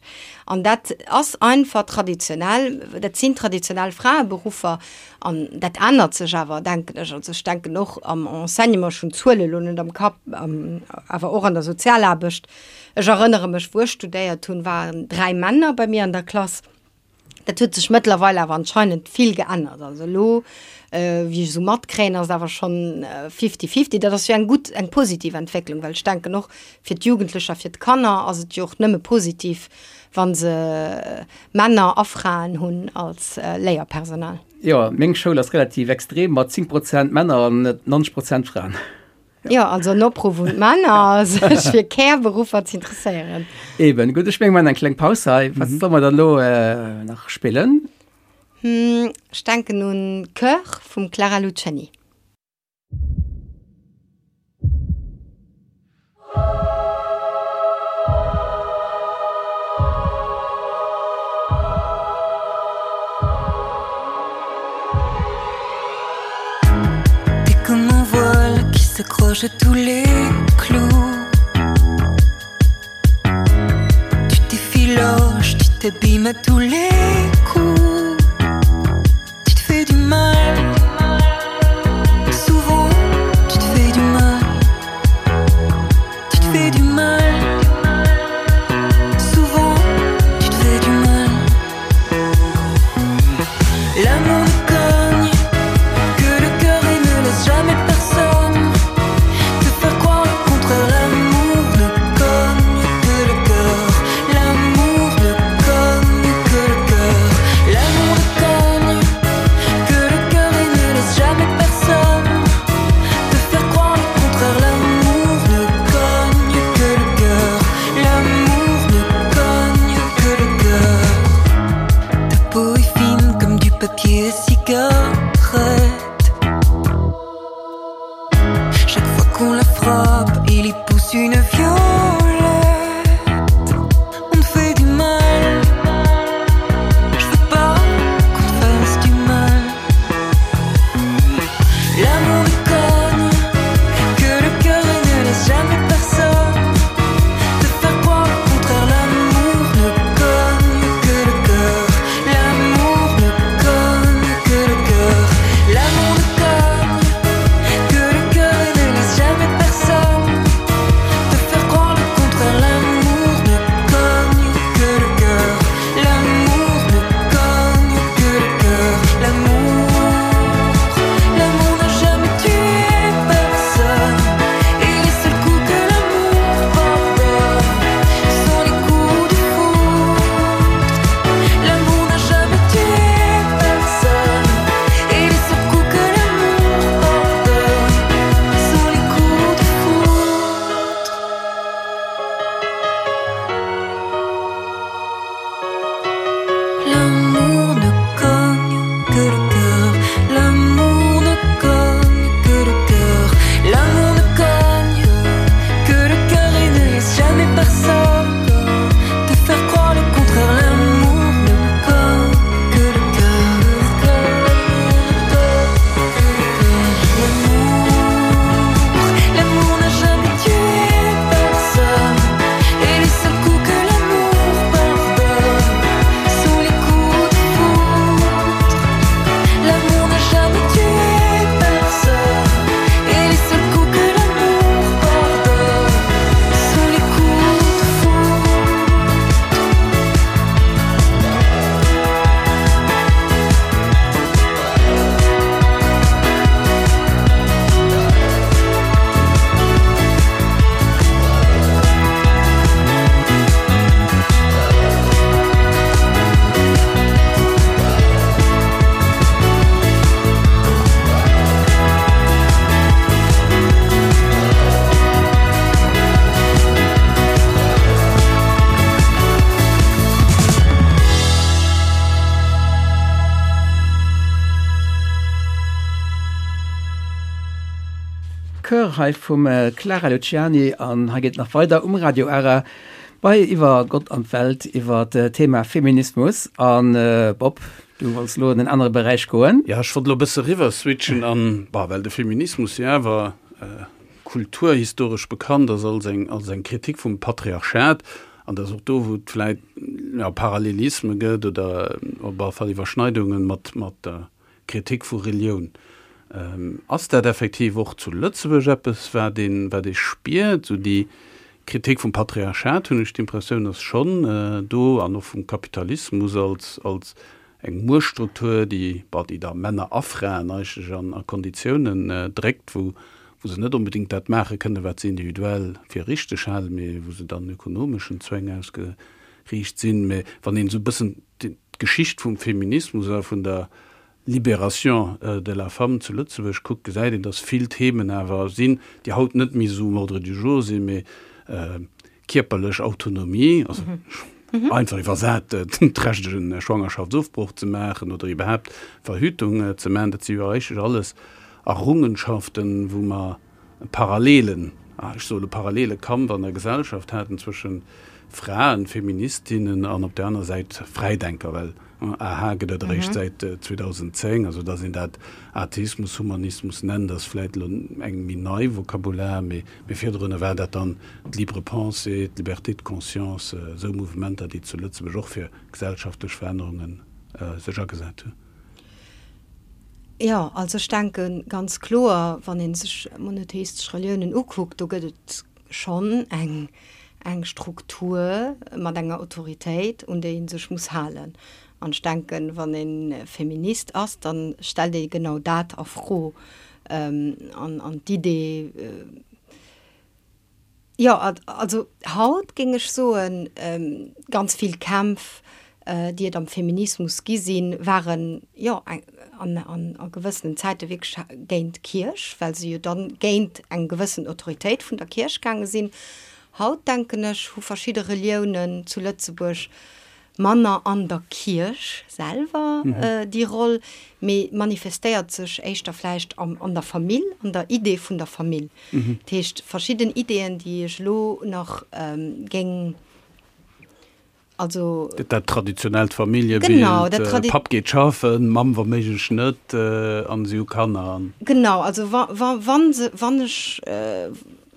An dat ass einfach traditionell, dat sinn traditionell Fraeberuffer an dat ännert sech awer, denken ech. Also ech denken och am Enseignement, ech hunn d'Zuele lo net am Kapp, awer och an der Sozialaarbecht. Ech erënnere mech, wou ech studéiert hunn, waren 3 Männer bei mir an der Klass. Dat huet sech mëttlerweil awer anscheinend vill geännert. Also elo, wéi ech esou matkréien, ass et awer schonn fifty-fifty. Dat ass jo eng gutt, eng positiv Entwécklung, well ech denken och fir d'Jugendlecher, fir d'Kanner ass et jo och nëmme positiv, wa se Männer a Fraen hunn als Léierpersonal. Jo, meng Schoul ass relativ extrem mat 10 Prozent Männer an 90 Prozent Fraen. Jo, also en Opruff un d'Männer, sech fir Care-Beruffer ze interesséieren. Eben, gutt, ech menge mer maachen eng kleng Paus hei. Wat solle mer dann elo nach spillen? Ech denken un Coeur vum Clara Luciani. t'accroches à tous les clous. Tu t'effiloches, tu t'abîmes à tous les coups. Tu te fais du mal. Souvent, tu te fais du mal. Tu te fais du mal. Souvent, tu te fais du mal. L'amour ne cogne que le cœur et ne laisse jamais personne te faire croire le contraire. L'amour ne cogne que le cœur. L'amour ne cogne que le cœur. L'amour ne cogne que le cœur et ne laisse jamais personne te faire croire le contraire. L'amour ne cogne que le cœur. L'amour ne cogne que le cœur. Ta peau est fine comme du papier à cigarette. Chaque fois qu'on la frappe, il y pousse une violette. On te fait du mal. Je veux pas qu'on te fasse du mal. L'amour ne cogne que le cœur et ne laisse jamais personne te faire croire le contraire. L'amour ne cogne que le cœur. L'amour ne cogne que le cœur. L'amour ne cogne que le cœur et ne laisse jamais personne te faire croire le contraire. L'amour ne cogne que le cœur. L'amour ne cogne que le cœur. L'amour, l'amour n'a jamais tué personne. Et les seuls coups que l'amour pardonne sont les coups de foudre. L'amour n'a jamais tué personne. Et les seuls coups que l'amour pardonne sont les coups de foudre. L'amour ne cogne que le cœur. L'amour ne cogne que le cœur. L'amour ne cogne que le cœur et ne laisse jamais personne te faire croire le contraire. L'amour ne cogne que le cœur. L'amour, l'amour n'a jamais tué personne. Et les seuls coups que l'amour pardonne sont les coups de foudre. L'amour n'a jamais tué personne. Et les seuls coups que l'amour pardonne sont les coups de foudre. Chœur hei vum Clara Luciani an hei geet et nach weider um Radio Ara bei Iwwer Gott an d'Welt iwwer d'Thema Feminismus. An Bob, du wollts elo an en anere Beräich goen. Jo, ech wollt elo e bësse riwwer switchen an, bah, well de Feminismus jo awer kulturhistoresch bekannt ass als eng, als eng Kritik vum Patriarchat, an dass och do, wou et vläit, jo, Parallelisme gëtt oder op alle Fall Iwwerschneidungen mat, mat der Kritik vu Relioun. Ass dat effektiv och zu Lëtzebuerg eppes, wat een, wat ee spiert? Esou déi Kritik vum Patriarchat, hunn ech d'Impressioun, ass schonn do, an och vum Kapitalismus als, als eng Muechtstruktur, déi, bon, déi da Männer a Fraen eigentlech an a Konditiounen dréckt, wou, wou se net onbedéngt dat maache kënnen, wat se individuell fir richteg halen, mee wou se dann ökonomeschen Zwäng ausgeriicht sinn. Mee wann een esou e bëssen d'Geschicht vum Feminismus a vun der Libération de la femme zu Lëtzebuerg kuckt, gesäit een, datt vill Themen awer sinn, déi haut net méi esou um Ordre du jour sinn, mee kierperlech Autonomie, also einfach iwwersat, d'Recht e Schwangerschaftsofbroch ze maachen oder iwwerhaapt Verhütung ze maachen, dat si jo eigentlech alles Errungenschaften, wou mer e parallelen, ech soe lo parallele Kampf an der Gesellschaft haten zwësche Fraen, Feministinnen an op där aner Säit Fräidenker, well. AH gëtt et eréischt säit 2010, also datt een dat Atheismus, Humanismus nennt, ass vläit elo eng méi nei Vokabular, mee virdrun war dat dann d'Libre pensée, d'Liberté de conscience, esou Mouvementer, déi zu Lëtzebuerg och fir gesellschaftlech Verännerunge sech agesat hunn. Jo, also ech denke ganz kloer, wann ee sech monotheistesch Reliounen ukuckt, do gëtt et schonn eng eng Struktur mat enger Autoritéit, un déi ee sech muss halen. An ech denken, wann ee Feminist ass, da stellt ee genau dat a Fro. An an d'Idee, jo, also haut géing ech soen, ganz vill Kämpf, déi et am Feminismus gi sinn, waren, jo, an a gewëssenen Zäite wierklech géint d'Kierch, well se jo dann géint eng gewëssen Autoritéit vun der Kierch gaange sinn. Haut, denken ech, hu verschidde Reliounen zu Lëtzebuerg manner an der Kierch selwer déi Roll, mee manifestéiert sech éischter vläicht an der Famill, an der Idee vun der Famill. Dat heescht, verschidden Ideeën, déi ech elo nach géing Also. Dat traditionellt Familljebild, genau, dat tradi Papp geet schaffen, Mamm wa méiglech net, an si hu Kanner. Genau, also wa, wa, wann se, wann ech,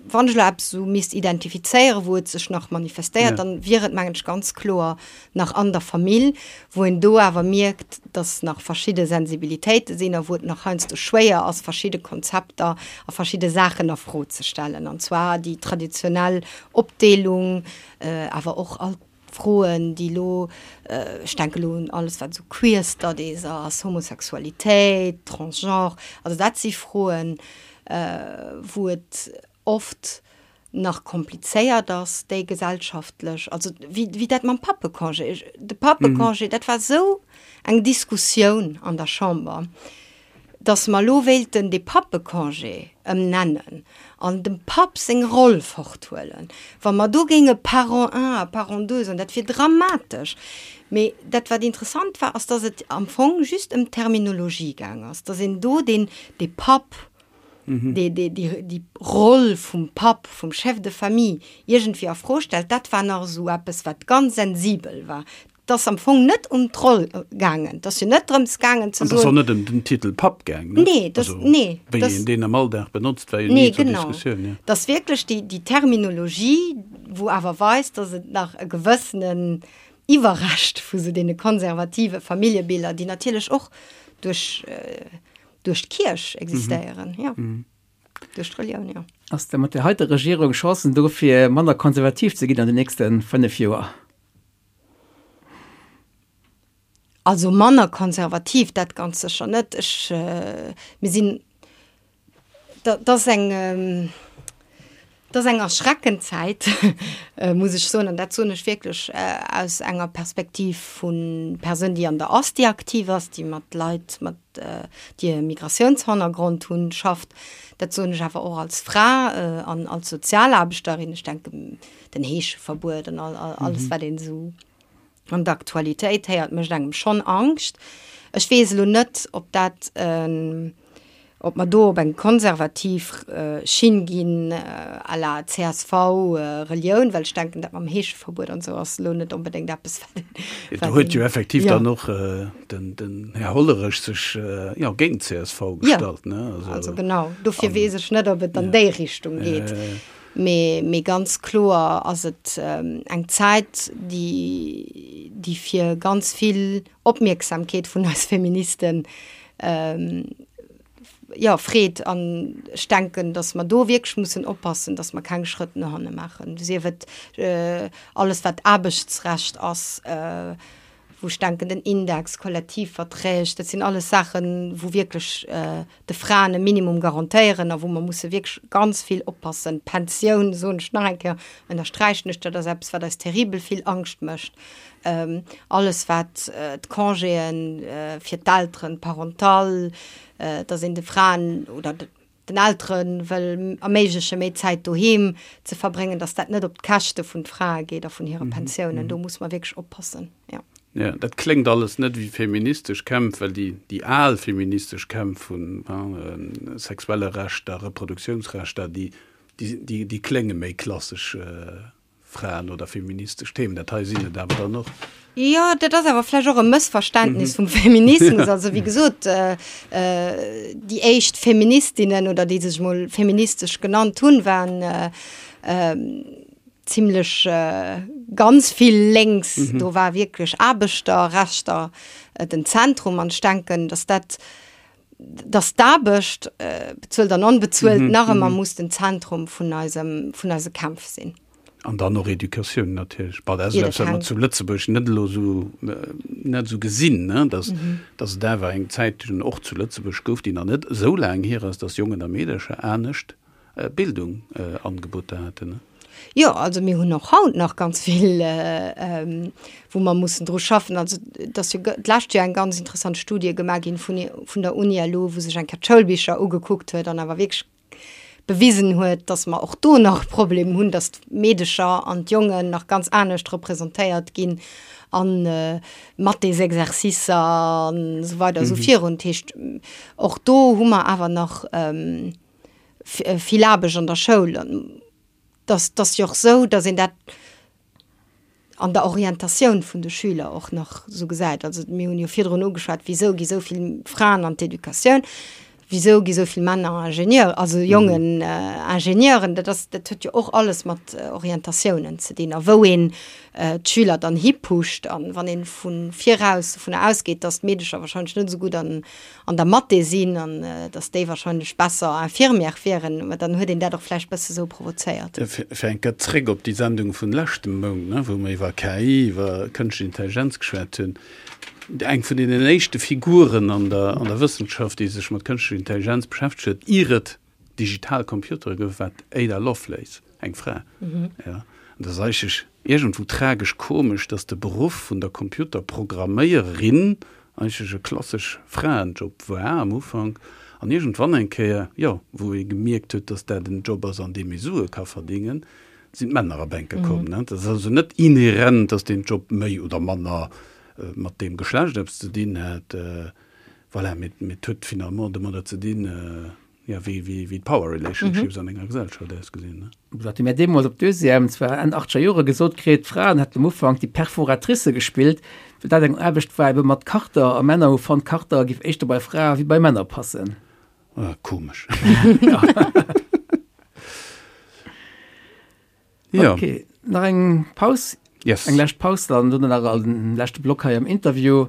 wann ech elo eppes esou misst identifizéieren, wou et sech nach manifestéiert, ja. dann wier et, mengen ech, ganz kloer nach an der Famill, wou een do awer mierkt, dass nach verschidde Sensibilitéite sinn a wou et nach heiansdo schwéier ass, verschidde Konzepter a verschidde Saachen a Fro ze stellen, an zwar déi traditionell Opdeelung, Awer och all d'Froen, déi elo, ech denke elo un alles, wat esou Queer Studies ass, Homosexualitéit, Transgenre, also dat si Froen, wou et oft nach komplizéiert ass, déi gesellschaftlech, also wéi dat mam Pappecongé, de Pappecongé, dat war esou eng Diskussioun an der Chamber. dass mer elo wéilten dee Pappecongé ëmnennen an dem Papp seng Roll forthuelen, wa mer do géinge Parent un a Parent deux soen, dat wier dramatesch. Mee dat, wat interessant war, ass, dass et am Fong just ëm d'Terminologie gaang ass, dass een do deen, dee Papp, dee, dee, déi, déi Roll vum Papp, vum Chef de famille iergendwéi a Fro stellt. Dat war nach esou eppes, wat ganz sensibel war. 't ass am Fong net ëm d'Roll gaangen. 't ass jo net drëms gaangen ze soen. An 't ass och net ëm den Titel Papp gaang, ne? Nee, dat, nee. Wéi een deen am Alldag benotzt, war jo ni zur Diskussioun, jo. 't ass wierklech déi, déi Terminologie, wou awer weist, datt et nach e gewëssenen Iwwerrescht vu sou deene konservative Familljebiller, déi natierlech och duerch, duerch d'Kierch existéieren, jo. Duerch d'Relioun, jo. Ass da mat där heiter Regierung Chancen do fir manner konservativ ze ginn an den nächste 5 Joer? Also manner konservativ, dat ganz sécher net. Ech, mir sinn, dat ass eng, dat ass eng erschreckend Zäit, muss ech soen. An dat soen ech wierklech aus enger Perspektiv vu Persoun, déi an der Asti aktiv ass, déi mat Leit, mat, déi e Migratiounshannergrond hunn, schafft. Dat soen ech awer och als Fra an als Sozialaarbechterin. Ech denken, den Heescheverbuet an alles wat een esou an der Aktualitéit héiert, mécht engem schonn Angscht. Ech weess elo net, ob dat, ob mer do op eng konservativ Schinn ginn à la csv, Relioun, well ech denken, dat mam Heescheverbuet an esou ass elo net onbedéngt eppes, wat een. Do huet jo effektiv dann och den Här Hollerech sech, jo, géint d'CSV gestallt, ne? Also genau, dofir weess ech net, ob et an déi Richtung geet. Mee, mee ganz kloer ass et eng Zäit, déi, déi fir ganz vill Opmierksamkeet vun eis Feministen, jo, freet. An ech denken, datt mer do wierklech mussen oppassen, datt mer keng Schrëtt no hanne maachen, sief et alles wat Aarbechtsrecht ass, wou ech denken, den Index, Kollektivverträg, dat sinn alles Saachen, wou wierklech de Fraen e Minimum garantéieren a wou mer musse wierklech ganz vill oppassen. D'Pensioun, soen ech nach eng Kéier, ënnersträichen ech, dat ass eppes, wat eis terribel vill Angscht mécht. Alles wat d'Congéen fir d'Elteren, d'Parental, dass een de Fraen oder den Eltere wëll erméigleche méi Zäit doheem ze verbréngen, datt dat net op d'Käschte vun d'Frae geet a vun hire Pensiounen. Do muss mer wierklech oppassen, jo. Jo, dat kléngt alles net wéi feministesch Kämpf, well déi, déi al feministesch Kämpf vun sexuelle Rechter, Reproduktiounsrechter, déi, déi, déi klénge méi klassesch. Fraen oder feministesch Themen. Dat hei sinn et awer dann och. Jo, dat ass awer vläicht och e Mëssverständnis vum Feminismus. Also wéi gesot, déi éischt Feministinnen oder déi sech mol feministesch genannt hunn, waren zimlech ganz vill lénks. Do war wierklech Aarbechterrechter den Zentrum. An ech denken, datt dat, datt d'Aarbecht, bezuelt an onbezuelt, nach ëmmer muss den Zentrum vun eisem, vun eise Kämpf sinn. An dann och Educatioun natierlech. Bon, dat ass eppes, wat mer zu Lëtzebuerg net elo esou, net esou gesinn, ne, dass, dass et awer eng Zäit och zu Lëtzebuerg gouf, déi nach net esou laang hier ass, dass Jongen a Meedercher anescht Bildung Angeboter haten, ne. Jo, also mir hunn och haut nach ganz vill, wou mer mussen dru schaffen. Also et ass jo d'lescht Joer eng ganz interessant Studie gemaach ginn vun vun der Uni elo, wou sech eng Kéier d'Schoulbicher ugekuckt huet an awer wierklech bewisen huet, dass mer och do nach e Problem hunn, dass d'Meedecher an d'Jongen nach ganz anescht representéiert ginn a Mathésexercicer an esou weider esou virun. Dat heescht, och do hu mer awer nach vill Aarbecht an der Schoul. An dass ass jo och esou, dass een dat an der Orientatioun vun de Schüler och nach esou gesäit. Also mir hunn jo virdrun ugeschwat, wisou gi sou vill Fraen an d'Educatioun, wisou gi sou vill Männer Ingenieur, also Jongen Ingenieuren. Dat ass, dat huet jo och alles mat Orientatiounen ze dinn a wou een d'Schüler dann hipusht. An wann ee vu viraus dovunner ausgeet, datt d'Meedecher wahrscheinlech net esou gutt an an der Mathé sinn an dass déi wahrscheinlech besser Infirmière wieren, mä dann huet een dat och vläicht bësse sou provozéiert. Fir eng Kéier zréck op déi Sendung vun leschtem Mount, wou mer iwwer KI, iwwer kënschtlech Intelligenz geschwat hunn. Eng vun deenen éischte Figuren an der an der Wëssenschaft, déi sech mat kënschtlecher Intelligenz beschäftegt huet, ier et digital Computere gouf, war d'Ada Lovelace, eng Fra. Jo, an dat ass eigentlech iergendwou tragesch komesch, dass de Beruff vun der Computerprogramméierin eigentlech e klassesch Fraenjob war am Ufank an iergendwann eng Kéier, jo, wou ee gemierkt huet, dass dat en Job ass, an deem ee Sue ka verdingen, sinn d'Männer a Bänke komm. Dat ass also net inhärent, dass deen Job méi oder manner mat deem Geschlecht eppes ze dinn hätt. Voilà, mee et huet finalement domadder ze dinn, Jo, wéi, wéi, wéi d'Power Relationships an enger Gesellschaft ausgesinn, ne? Dat hu mir deemools op Deuxième, zwar Enn achtzeger Jore, gesot kritt, d'Fraen hätten am Ufank déi Perforatricë gespillt, well dat eng Aarbecht war ebe mat Karter a Männer hu fonnt, Karter giff éischter bei Frae wéi bei Männer passen. Ah, komesch. Ja. Okay, nach eng Paus? Yes. Eng lescht Paus dann, dunn nach en leschte Block hei am Interview.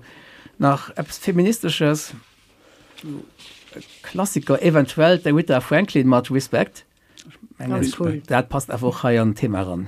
Nach eppes Feministesches, Klassiker eventuell, d'Aretha Franklin mat Respect. Ech mengen, Ganz cool. dat passt awer och hei an d'Thema eran.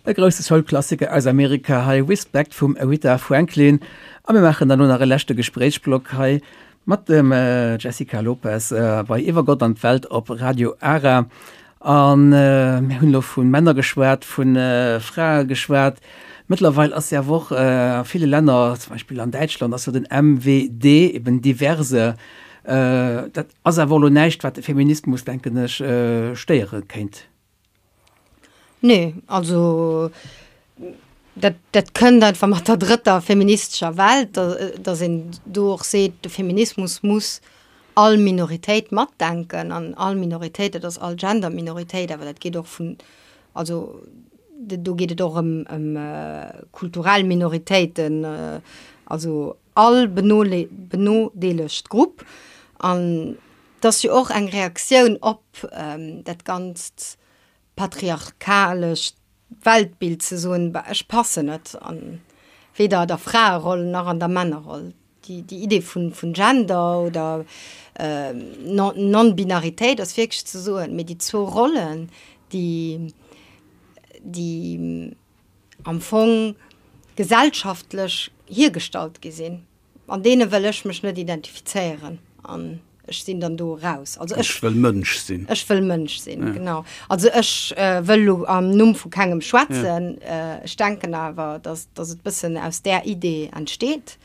E grousse Soul-Klassiker aus Amerika hei, Respect vum Aretha Franklin. A mir maachen dann elo nach e leschte Gespréichsblock hei mat dem Jessica Lopes bei Iwwer Gott an d'Welt op Radio Ara. A mir hunn elo vu Männer geschwat, vu Frae geschwat. Mëttlerweil ass jo awer och a ville Länner, zum Beispill an Däitschland ass jo den MWD, eben diverse, dat ass awer elo näischt, wat de Feminismus, denken ech, stéiere kéint. Nee, also dat, dat kënnt einfach mat der drëtter feministescher Welt, datt een do och seet, de Feminismus muss all Minoritéit matdenken an all Minoritéit, dat ass all Gender-Minoritéit, awer dat geet och vun, also do geet et och ëm, ëm kulturell Minoritéiten, also all benodeelegt Grupp. An 't ass jo och eng Reaktioun op dat ganzt patriarchalescht Weltbild ze soen, bah ech passen net an weder der Fraeroll nach an der Männerroll. Déi Idee vun Gender oder Non-Binaritéit ass wierklech ze soen, mee déi zwou Rollen, déi déi am Fong gesellschaftlech hiergestallt gi sinn, an deene wëll ech mech net identifizéieren an ech sinn dann do eraus. Also ech, ech wëll Mënsch sinn. Ech wëll Mënsch sinn, ja. genau. Also ech äh, wëll lo am Numm vu kengem schwätzen. Ja. Äh, ech denken awer, dass, dass et bëssen aus där Idee entsteet.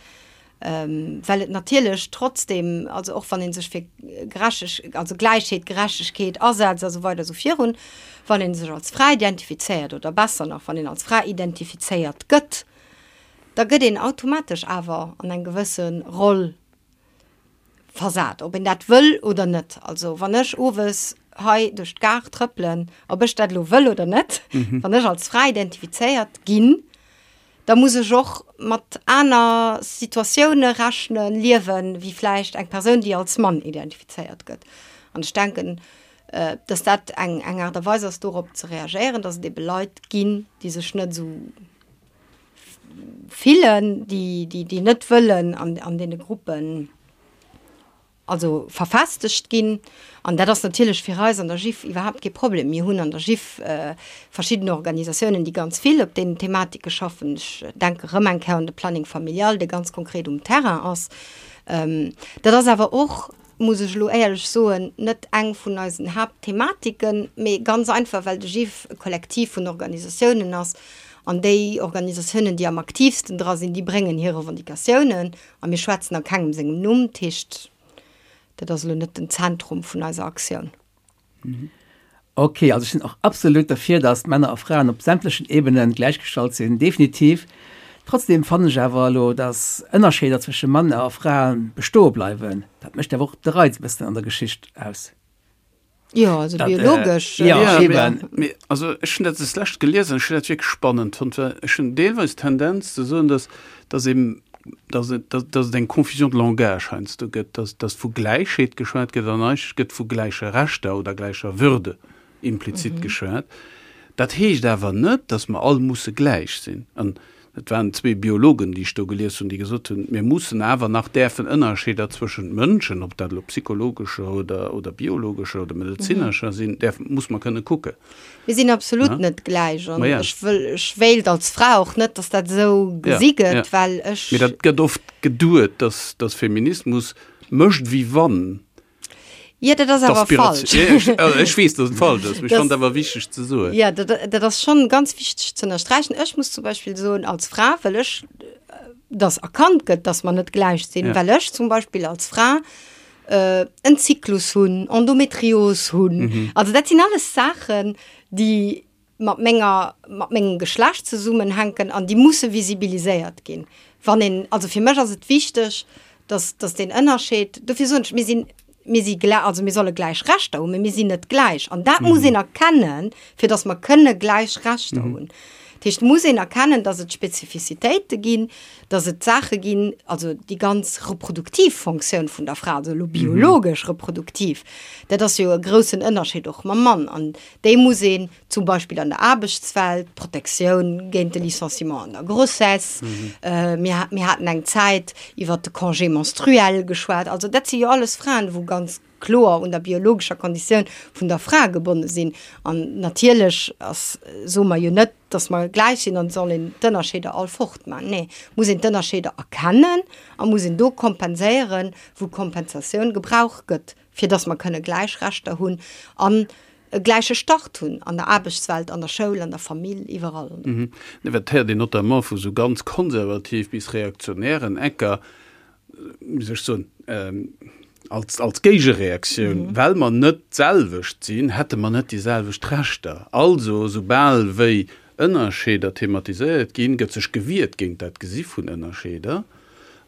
Ähm, well et natierlech trotzdem, also och wann een sech fir Gerechteg, also Gläichheet, Gerechtegkeet asetzt a sou weider sou virun, wann een sech als Fra identifizéiert oder besser nach, wann een als Fra identifizéiert gëtt, da gëtt een automatesch awer an eng gewësse Roll versat, ob een dat wëll oder net. Also wann ech owes hei duerch d'Gare trëppelen, ob ech dat elo wëll oder net, wann ech als Fra identifizéiert ginn, da muss ech och mat aner Situatioune rechnen, liewen, wéi vläicht eng Persoun, déi als Mann identifizéiert gëtt. An ech denken, dass dat eng eng Aart a Weis ass, dorop ze reagéieren, dass et ebe Leit ginn, déi sech net esou fillen, déi déi déi net wëllen an an deene Gruppen also verfestegt ginn. An dat ass natierlech fir eis an der GIF iwwerhaapt kee Problem. Mir hunn an der GIF verschidden Organisatiounen, déi ganz vill op deenen Thematike schaffen. Ech denke rëm eng Kéier un de Planning familial, dee ganz konkret um Terrain ass. Dat ass awer och, muss ech elo éierlech soen, net eng vun eisen Haaptthematiken, mee ganz einfach, well de GIF e Kollektiv vun Organisatiounen ass an déi Organisatiounen, déi am aktiivsten dra sinn, déi bréngen hir Revendicatiounen A mir schwätzen a kengem sengem Numm, dat heescht, dat ass elo net den Zentrum vun eiser Aktioun. Ok, also ech sinn och absolut derfir, dass Männer a Fraen op sämtlechen Ebenen gläichgestallt sinn, definitiv. Trotzdem fannen ech awer elo, dass Ënnerscheeder zwësche Männer a Fraen bestoe bleiwen. Dat mécht awer och de Reiz e bëssen an der Geschicht aus. Jo, also Dat, äh, biologesch. ja, Ja, eben. mee, also ech hunn dat des Lescht gelies an ech hunn dat wierklech spannend fonnt, well ech hunn deelweis d'Tendenz ze soen, dass, dass eben, dass et, dass, dass et eng Confusion de langage heiansdo gëtt, dass, dass vu Gläichheet geschwat gëtt an eigentlech gëtt vu gläiche Rechter oder gläicher Würde implizit geschwat. Dat heescht awer net, dass mer all musse gläich sinn. An Et waren zwee Biologen, déi ech do gelies hunn, déi gesot hunn, mir mussen awer nach däerfen Ënnerscheeder zwëschent Mënschen, ob dat elo psychologescher oder, oder biologescher oder medezinescher sinn, däerf, muss mer kënne kucken. Mir sinn absolut net gläich an ech wëll, ech wéilt als Fra och net, datt dat esou gesi gëtt, well ech. Mee dat gëtt oft geduet, datt, datt Feminismus mécht wéi wann. Jo, dat ass awer falsch. Ech weess, datt et falsch ass, mee ech fannen et awer wichteg ze soen. Jo, dat ass schonn ganz wichteg ze ënnersträichen. Ech muss zum Beispill soen, als Fra wëll ech, datt erkannt gëtt, datt mer net gläich sinn, well ech zum Beispill als Fra en Zyklus hunn, Endometrios hunn. Also dat sinn alles Saachen, déi mat menger, mat mengem Geschlecht zesummenhänken an déi musse visibiliséiert ginn. Wann een, also fir mech ass et wichteg, dass, dass deen Ënnerscheed, dofir soen ech, mir sinn, mir si glä, also mir solle gläich Rechter hunn, mee mir sinn net gläich. An dat muss een erkennen, fir dass mer kënne gläich Rechter hunn. Dat heescht, et muss een erkennen, dass et Spezifizitéite ginn, dass et Saache ginn, also déi ganz reproduktiv Fonctioun vun der Fra, also elo biologesch reproduktiv, dat ass jo e groussen Ënnerscheed och mam Mann. An Déi muss een zum Beispill an der Aarbechtswelt, Protektioun géint de Licenciement an der Grossesse, mir, mir haten eng Zäit iwwert de Congé menstruel geschwat. Also dat si jo alles Fraen, wou ganz. kloer un der biologescher Konditioun vun der Fra gebonne sinn. An natierlech ass, soe mer jo net, dass mer gläich sinn an et soll een d'Ënnerscheeder all fortman. Nee, muss een d'Ënnerscheeder erkennen a muss een do kompenséieren, wou Kompensatioun gebraucht gëtt, fir dass mer kënne gläich Rechter hunn an e gläiche Start hunn an der Aarbechtswelt, an der Schoul, an der Famill, iwwerall. Nee, wat héiert een notamment vu sou ganz konservativ bis reaktionären Ecker, wéi soll ech soen, als, als Géigereaktioun, well mer net d'selwecht sinn, hätte mer net déi selwecht Rechter. Also, soubal wéi Ënnerscheeder thematiséiert ginn, gëtt sech gewiert géint dat Gesi vun Ënnerscheeder.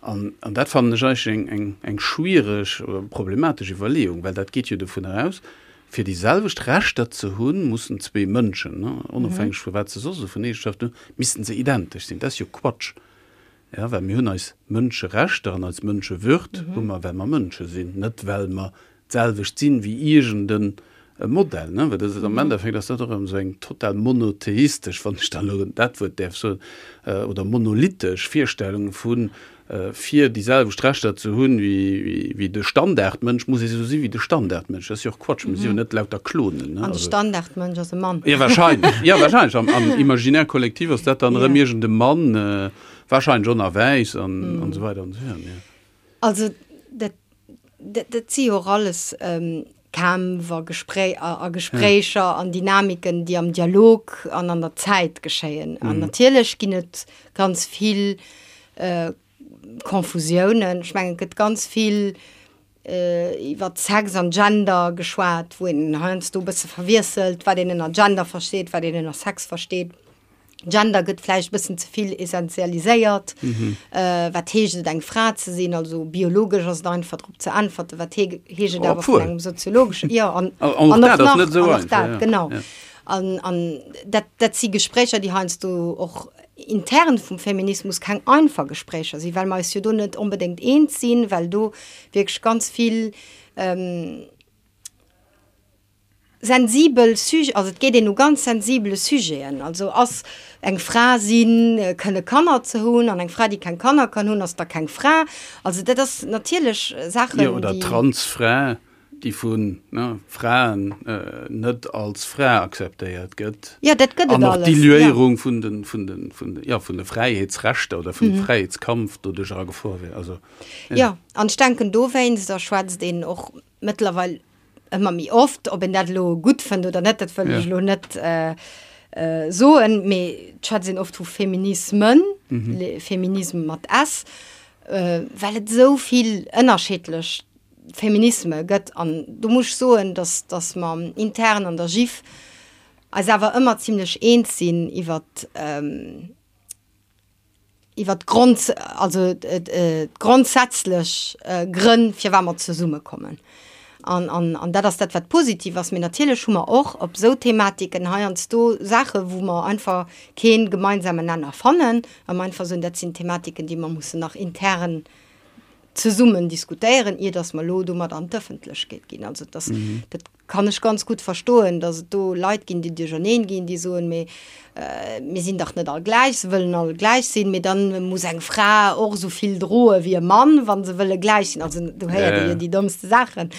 An, an dat fannen ech eigentlech eng, eng, eng schwiereg oder problematesch Iwwerleeung, well dat geet jo dovun aus, fir déi selwecht Rechter ze hunn, mussen zwee Mënschen, onofhängeg vu wat se soss esou vun Eegenschaften hunn, missten se identesch sinn. Dat ass jo Quatsch. Jo, well mir hunn eis Mënscherechter an eis Mënschewürd hu mer, well mer Mënsche sinn, net well mer d'selwecht sinn wéi iergend e Modell. Ne? Well dat ass am Endeffekt ass dat och erëm esou eng total monotheistesch, wann ech dann elo dat Wuert däerf soen, oder monolithisch Virstellung vu fir déi selwecht Rechter ze hunn wéi de Standardmënsch, muss ee sou si wéi de Standardmënsch. Dat ass jo och Quatsch, mir si jo net lauter Klonen. Ne? An de Standardmënsch ass e Mann. Jo, wahrscheinlech. Jo, wahrscheinlech. Am, am Imaginaire collectif ass dat dann erëm iergend e Mann, Wahrscheinlech och nach wäiss an an esou weider an esou virun, jo. Also dat, dat, dat si jo och alles Kämpf a Gesprä a Gespréicher an Dynamiken, déi am Dialog an an der Zäit geschéien. An natierlech ginn et ganz vill Confusiounen. Ech mengen, et gëtt ganz vill iwwer Sex an Gender geschwat, wou een heiansdo e bësse verwiesselt, wat een ënner Gender versteet, wat een ënner Sex versteet. Gender gëtt vläicht e bëssen ze vill essentialiséiert. Wat heescht et, eng Fra ze sinn? Also biologesch ass et einfach drop ze äntwerten. Wat heescht et awer vun engem soziologeschen, jo, an an och dat ass net esou einfach, genau. An an dat dat si Gespréicher, déi heiansdo och intern vum Feminismus keng einfach Gespréicher sinn, well mer eis jo do net onbedéngt eens sinn, well do wierklech ganz vill sensibel Sujeten, also et geet een u ganz sensibele Sujeten, also ass eng Fra sinn, kënne Kanner ze hunn an eng Fra, déi keng Kanner kann hunn, ass da keng Fra. Also dat ass natierlech Saachen, déi. Jo, oder Transfra, déi vu Fraen net als Fra akzeptéiert gëtt. Jo, dat gëtt et alles. An och d'Diluéierung vun de, vun de, vun de, jo, vun de Fräiheetsrechter oder vum Fräiheetskampf doduerch a Gefor wier. Also, jo. Jo, an ech denken dowéinst, da schwätzt een och mëttlerweil ëmmer méi oft, ob een dat elo gutt fënnt oder net, dat wëll ech elo net soen, mee et schwätzt een oft vu Feminismen, Feminisme mat s, well et esou vill ënnerschiddlech Feminisme gëtt. An do muss ech soen, dass, dass mer intern an der GIF eis awer ëmmer zimlech eens sinn iwwert, iwwer d'Grond, also d'grondsätzlech Grënn, firwat mer zesummekommen. An, an, an dat ass dat, wat positiv ass. Mee natierlech hu mer och op esou Thematiken heiansdo Saachen, wou mer einfach kee gemeinsamen Nenner fannen a mer einfach soen, dat sinn Thematiken, déi mer mussen nach intern zesummen diskutéieren, ier datt mer elo domat an d'Ëffentlechkeet ginn. Also dass, dat kann ech ganz gutt verstoen, datt et do Leit ginn, déi duercherneen ginn, déi soen, mee mir sinn dach net all gläich, se wëllen all gläich sinn, mee dann muss eng Fra och esou vill droe wéi e Mann, wa se wëlle gläich sinn. Also do héiert ee jo déi dommste Saachen.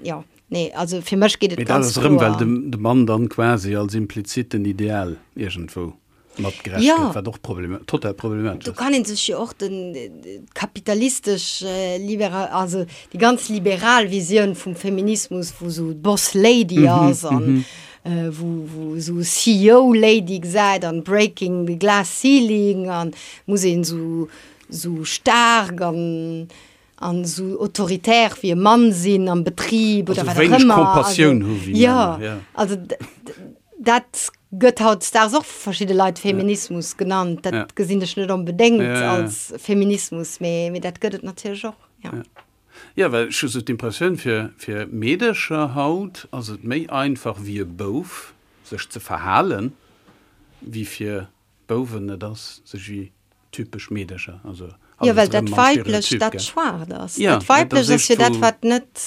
Jo, nee, also fir mech geet et ganz kloer. Mee dat ass erëm, well de Mann dann quasi als impliziten Ideal iergendwou mat gerecht ja. gëtt, wat och Problem, total problematesch Do kann een sech jo och den kapitalistesch äh, liberal, also déi ganz liberal Visioun vum Feminismus, wou sou d'Boss Lady mhm, ass an mm -hmm. äh, wou, wou sou CEO Lady gesäit an Breaking the Glass Ceiling an muss een sou sou staark an an esou autoritär wéi e Mann sinn am Betrib oder also wat och ëmmer. Compassioun hu wéi ja, ja. Also dat gëtt hautdesdaags och vu verschidde Leit Feminismus ja. genannt. Dat ja. gesinn ech net onbedéngt ja, ja. als Feminismus, mee, mee dat gëtt et natierlech och. Ja. Ja. Ja, well ech hu sou d'Impressioun, fir, fir Meedercher haut ass et méi einfach wéi e Bouf sech ze verhalen, wéi fir Bouwen, et ass sech wéi typesch Meedercher, also Jo, well dat Weiblecht dat Schwaacht ass. Dat Weiblecht ass jo dat, wat net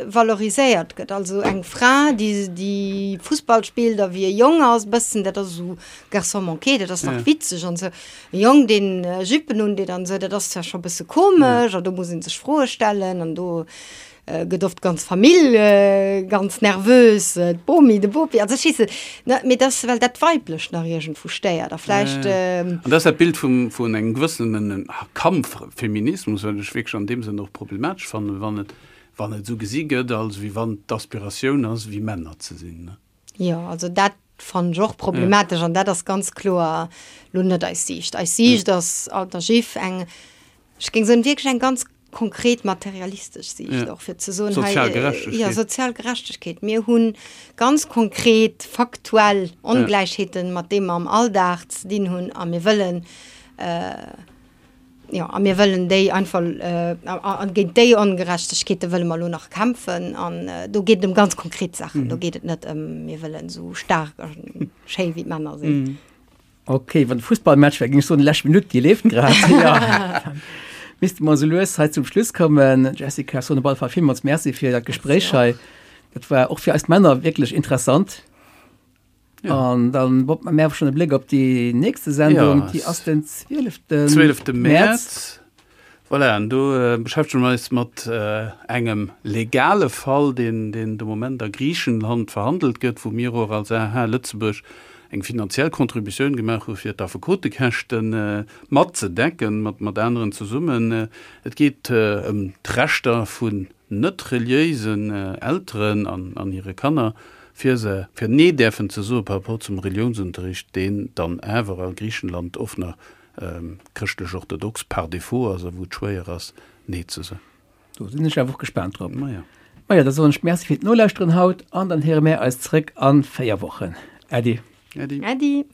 valoriséiert gëtt. Also eng Fra, déi, déi Fussball spillt a wéi e Jong ass, bëssen, dat ass esou Garçon manqué, dat ass nach witzeg an esou. E Jong, deen Juppen undeet an esou, dat ass zwar scho bësse komesch a do muss ee sech Froe stellen an do. gëtt oft d'ganz Famill ganz nervös, d'Bomi, de Bopi, also ech weess net, ne, mee dass, well dat Weiblecht nach iergendwou stéiert a vläicht. An dat ass dat Bild vum, vun engem gewëssenen Kampffeminismus, wat ech wierklech an deem Sënn och problematesch fannen, wann et, wann et esou gesi gëtt, als wéi wann d'Aspiratioun ass, wéi Männer ze sinn, ne. Jo, also dat fannen ech och problematesch an dat ass ganz kloer lo net eis Siicht. Eis Siicht ass alter Jiff eng, ech géing soen, wierklech eng ganz konkret materialistesch Siicht och fir ze soen, hei, Sozial Gerechtegkeet. jo, sozial Gerechtegkeet. Mir hu ganz konkret faktuell Ongläichheeten, mat deem mer am Alldag ze dinn hunn a mir wëllen, Jo, a mir wëllen déi einfach, a géint déi Ongerechtegkeete wëlle mer elo nach kämpfen. An do geet et ëm ganz konkret Saachen. Do geet et net ëm, mir wëllen esou staark a schéi wéi d'Männer sinn. Ok, wann e Fussballmatch wär, géing ech soen, déi lescht Minutt, déi leeft grad. Jo, misste mer esou lues hei zum Schluss kommen. Jessica, ech soen op alle Fall villmools Merci fir dat Gespréich hei. Dat war och fir eis Männer wierklech interessant. Ja. An dann Bob, mir schon e Bléck op déi nächste Sendung, ja. déi ass den 12. 12. März. Voilà, an do äh, beschäftegen wir eis mat äh, engem legale Fall, den, den de Moment a Griichenland verhandelt gëtt, wou mir och als AH Lëtzebuerg eng finanziell Contributioun gemaach hu fir d'Affekotekäschten äh, matzedecken, mat, mat aneren zesummen. Äh, et geet äh, ëm d'Rechter vun net reliéisen Elteren an, an hire Kanner, fir se, fir Nee däerfen ze soe par rapport zum Reliounsunterricht, deen dann awer a Griichenland oft nach chrëschtlech-orthodox par défaut ass a wou et schwéier ass, Nee ze soen. Do sinn ech awer och gespaant drop. Maja. Maja, da soen ech Merci fir d'Nolauschteren haut an dann héiere mär eis zréck a 4 Wochen. Äddi. Äddi. Äddi.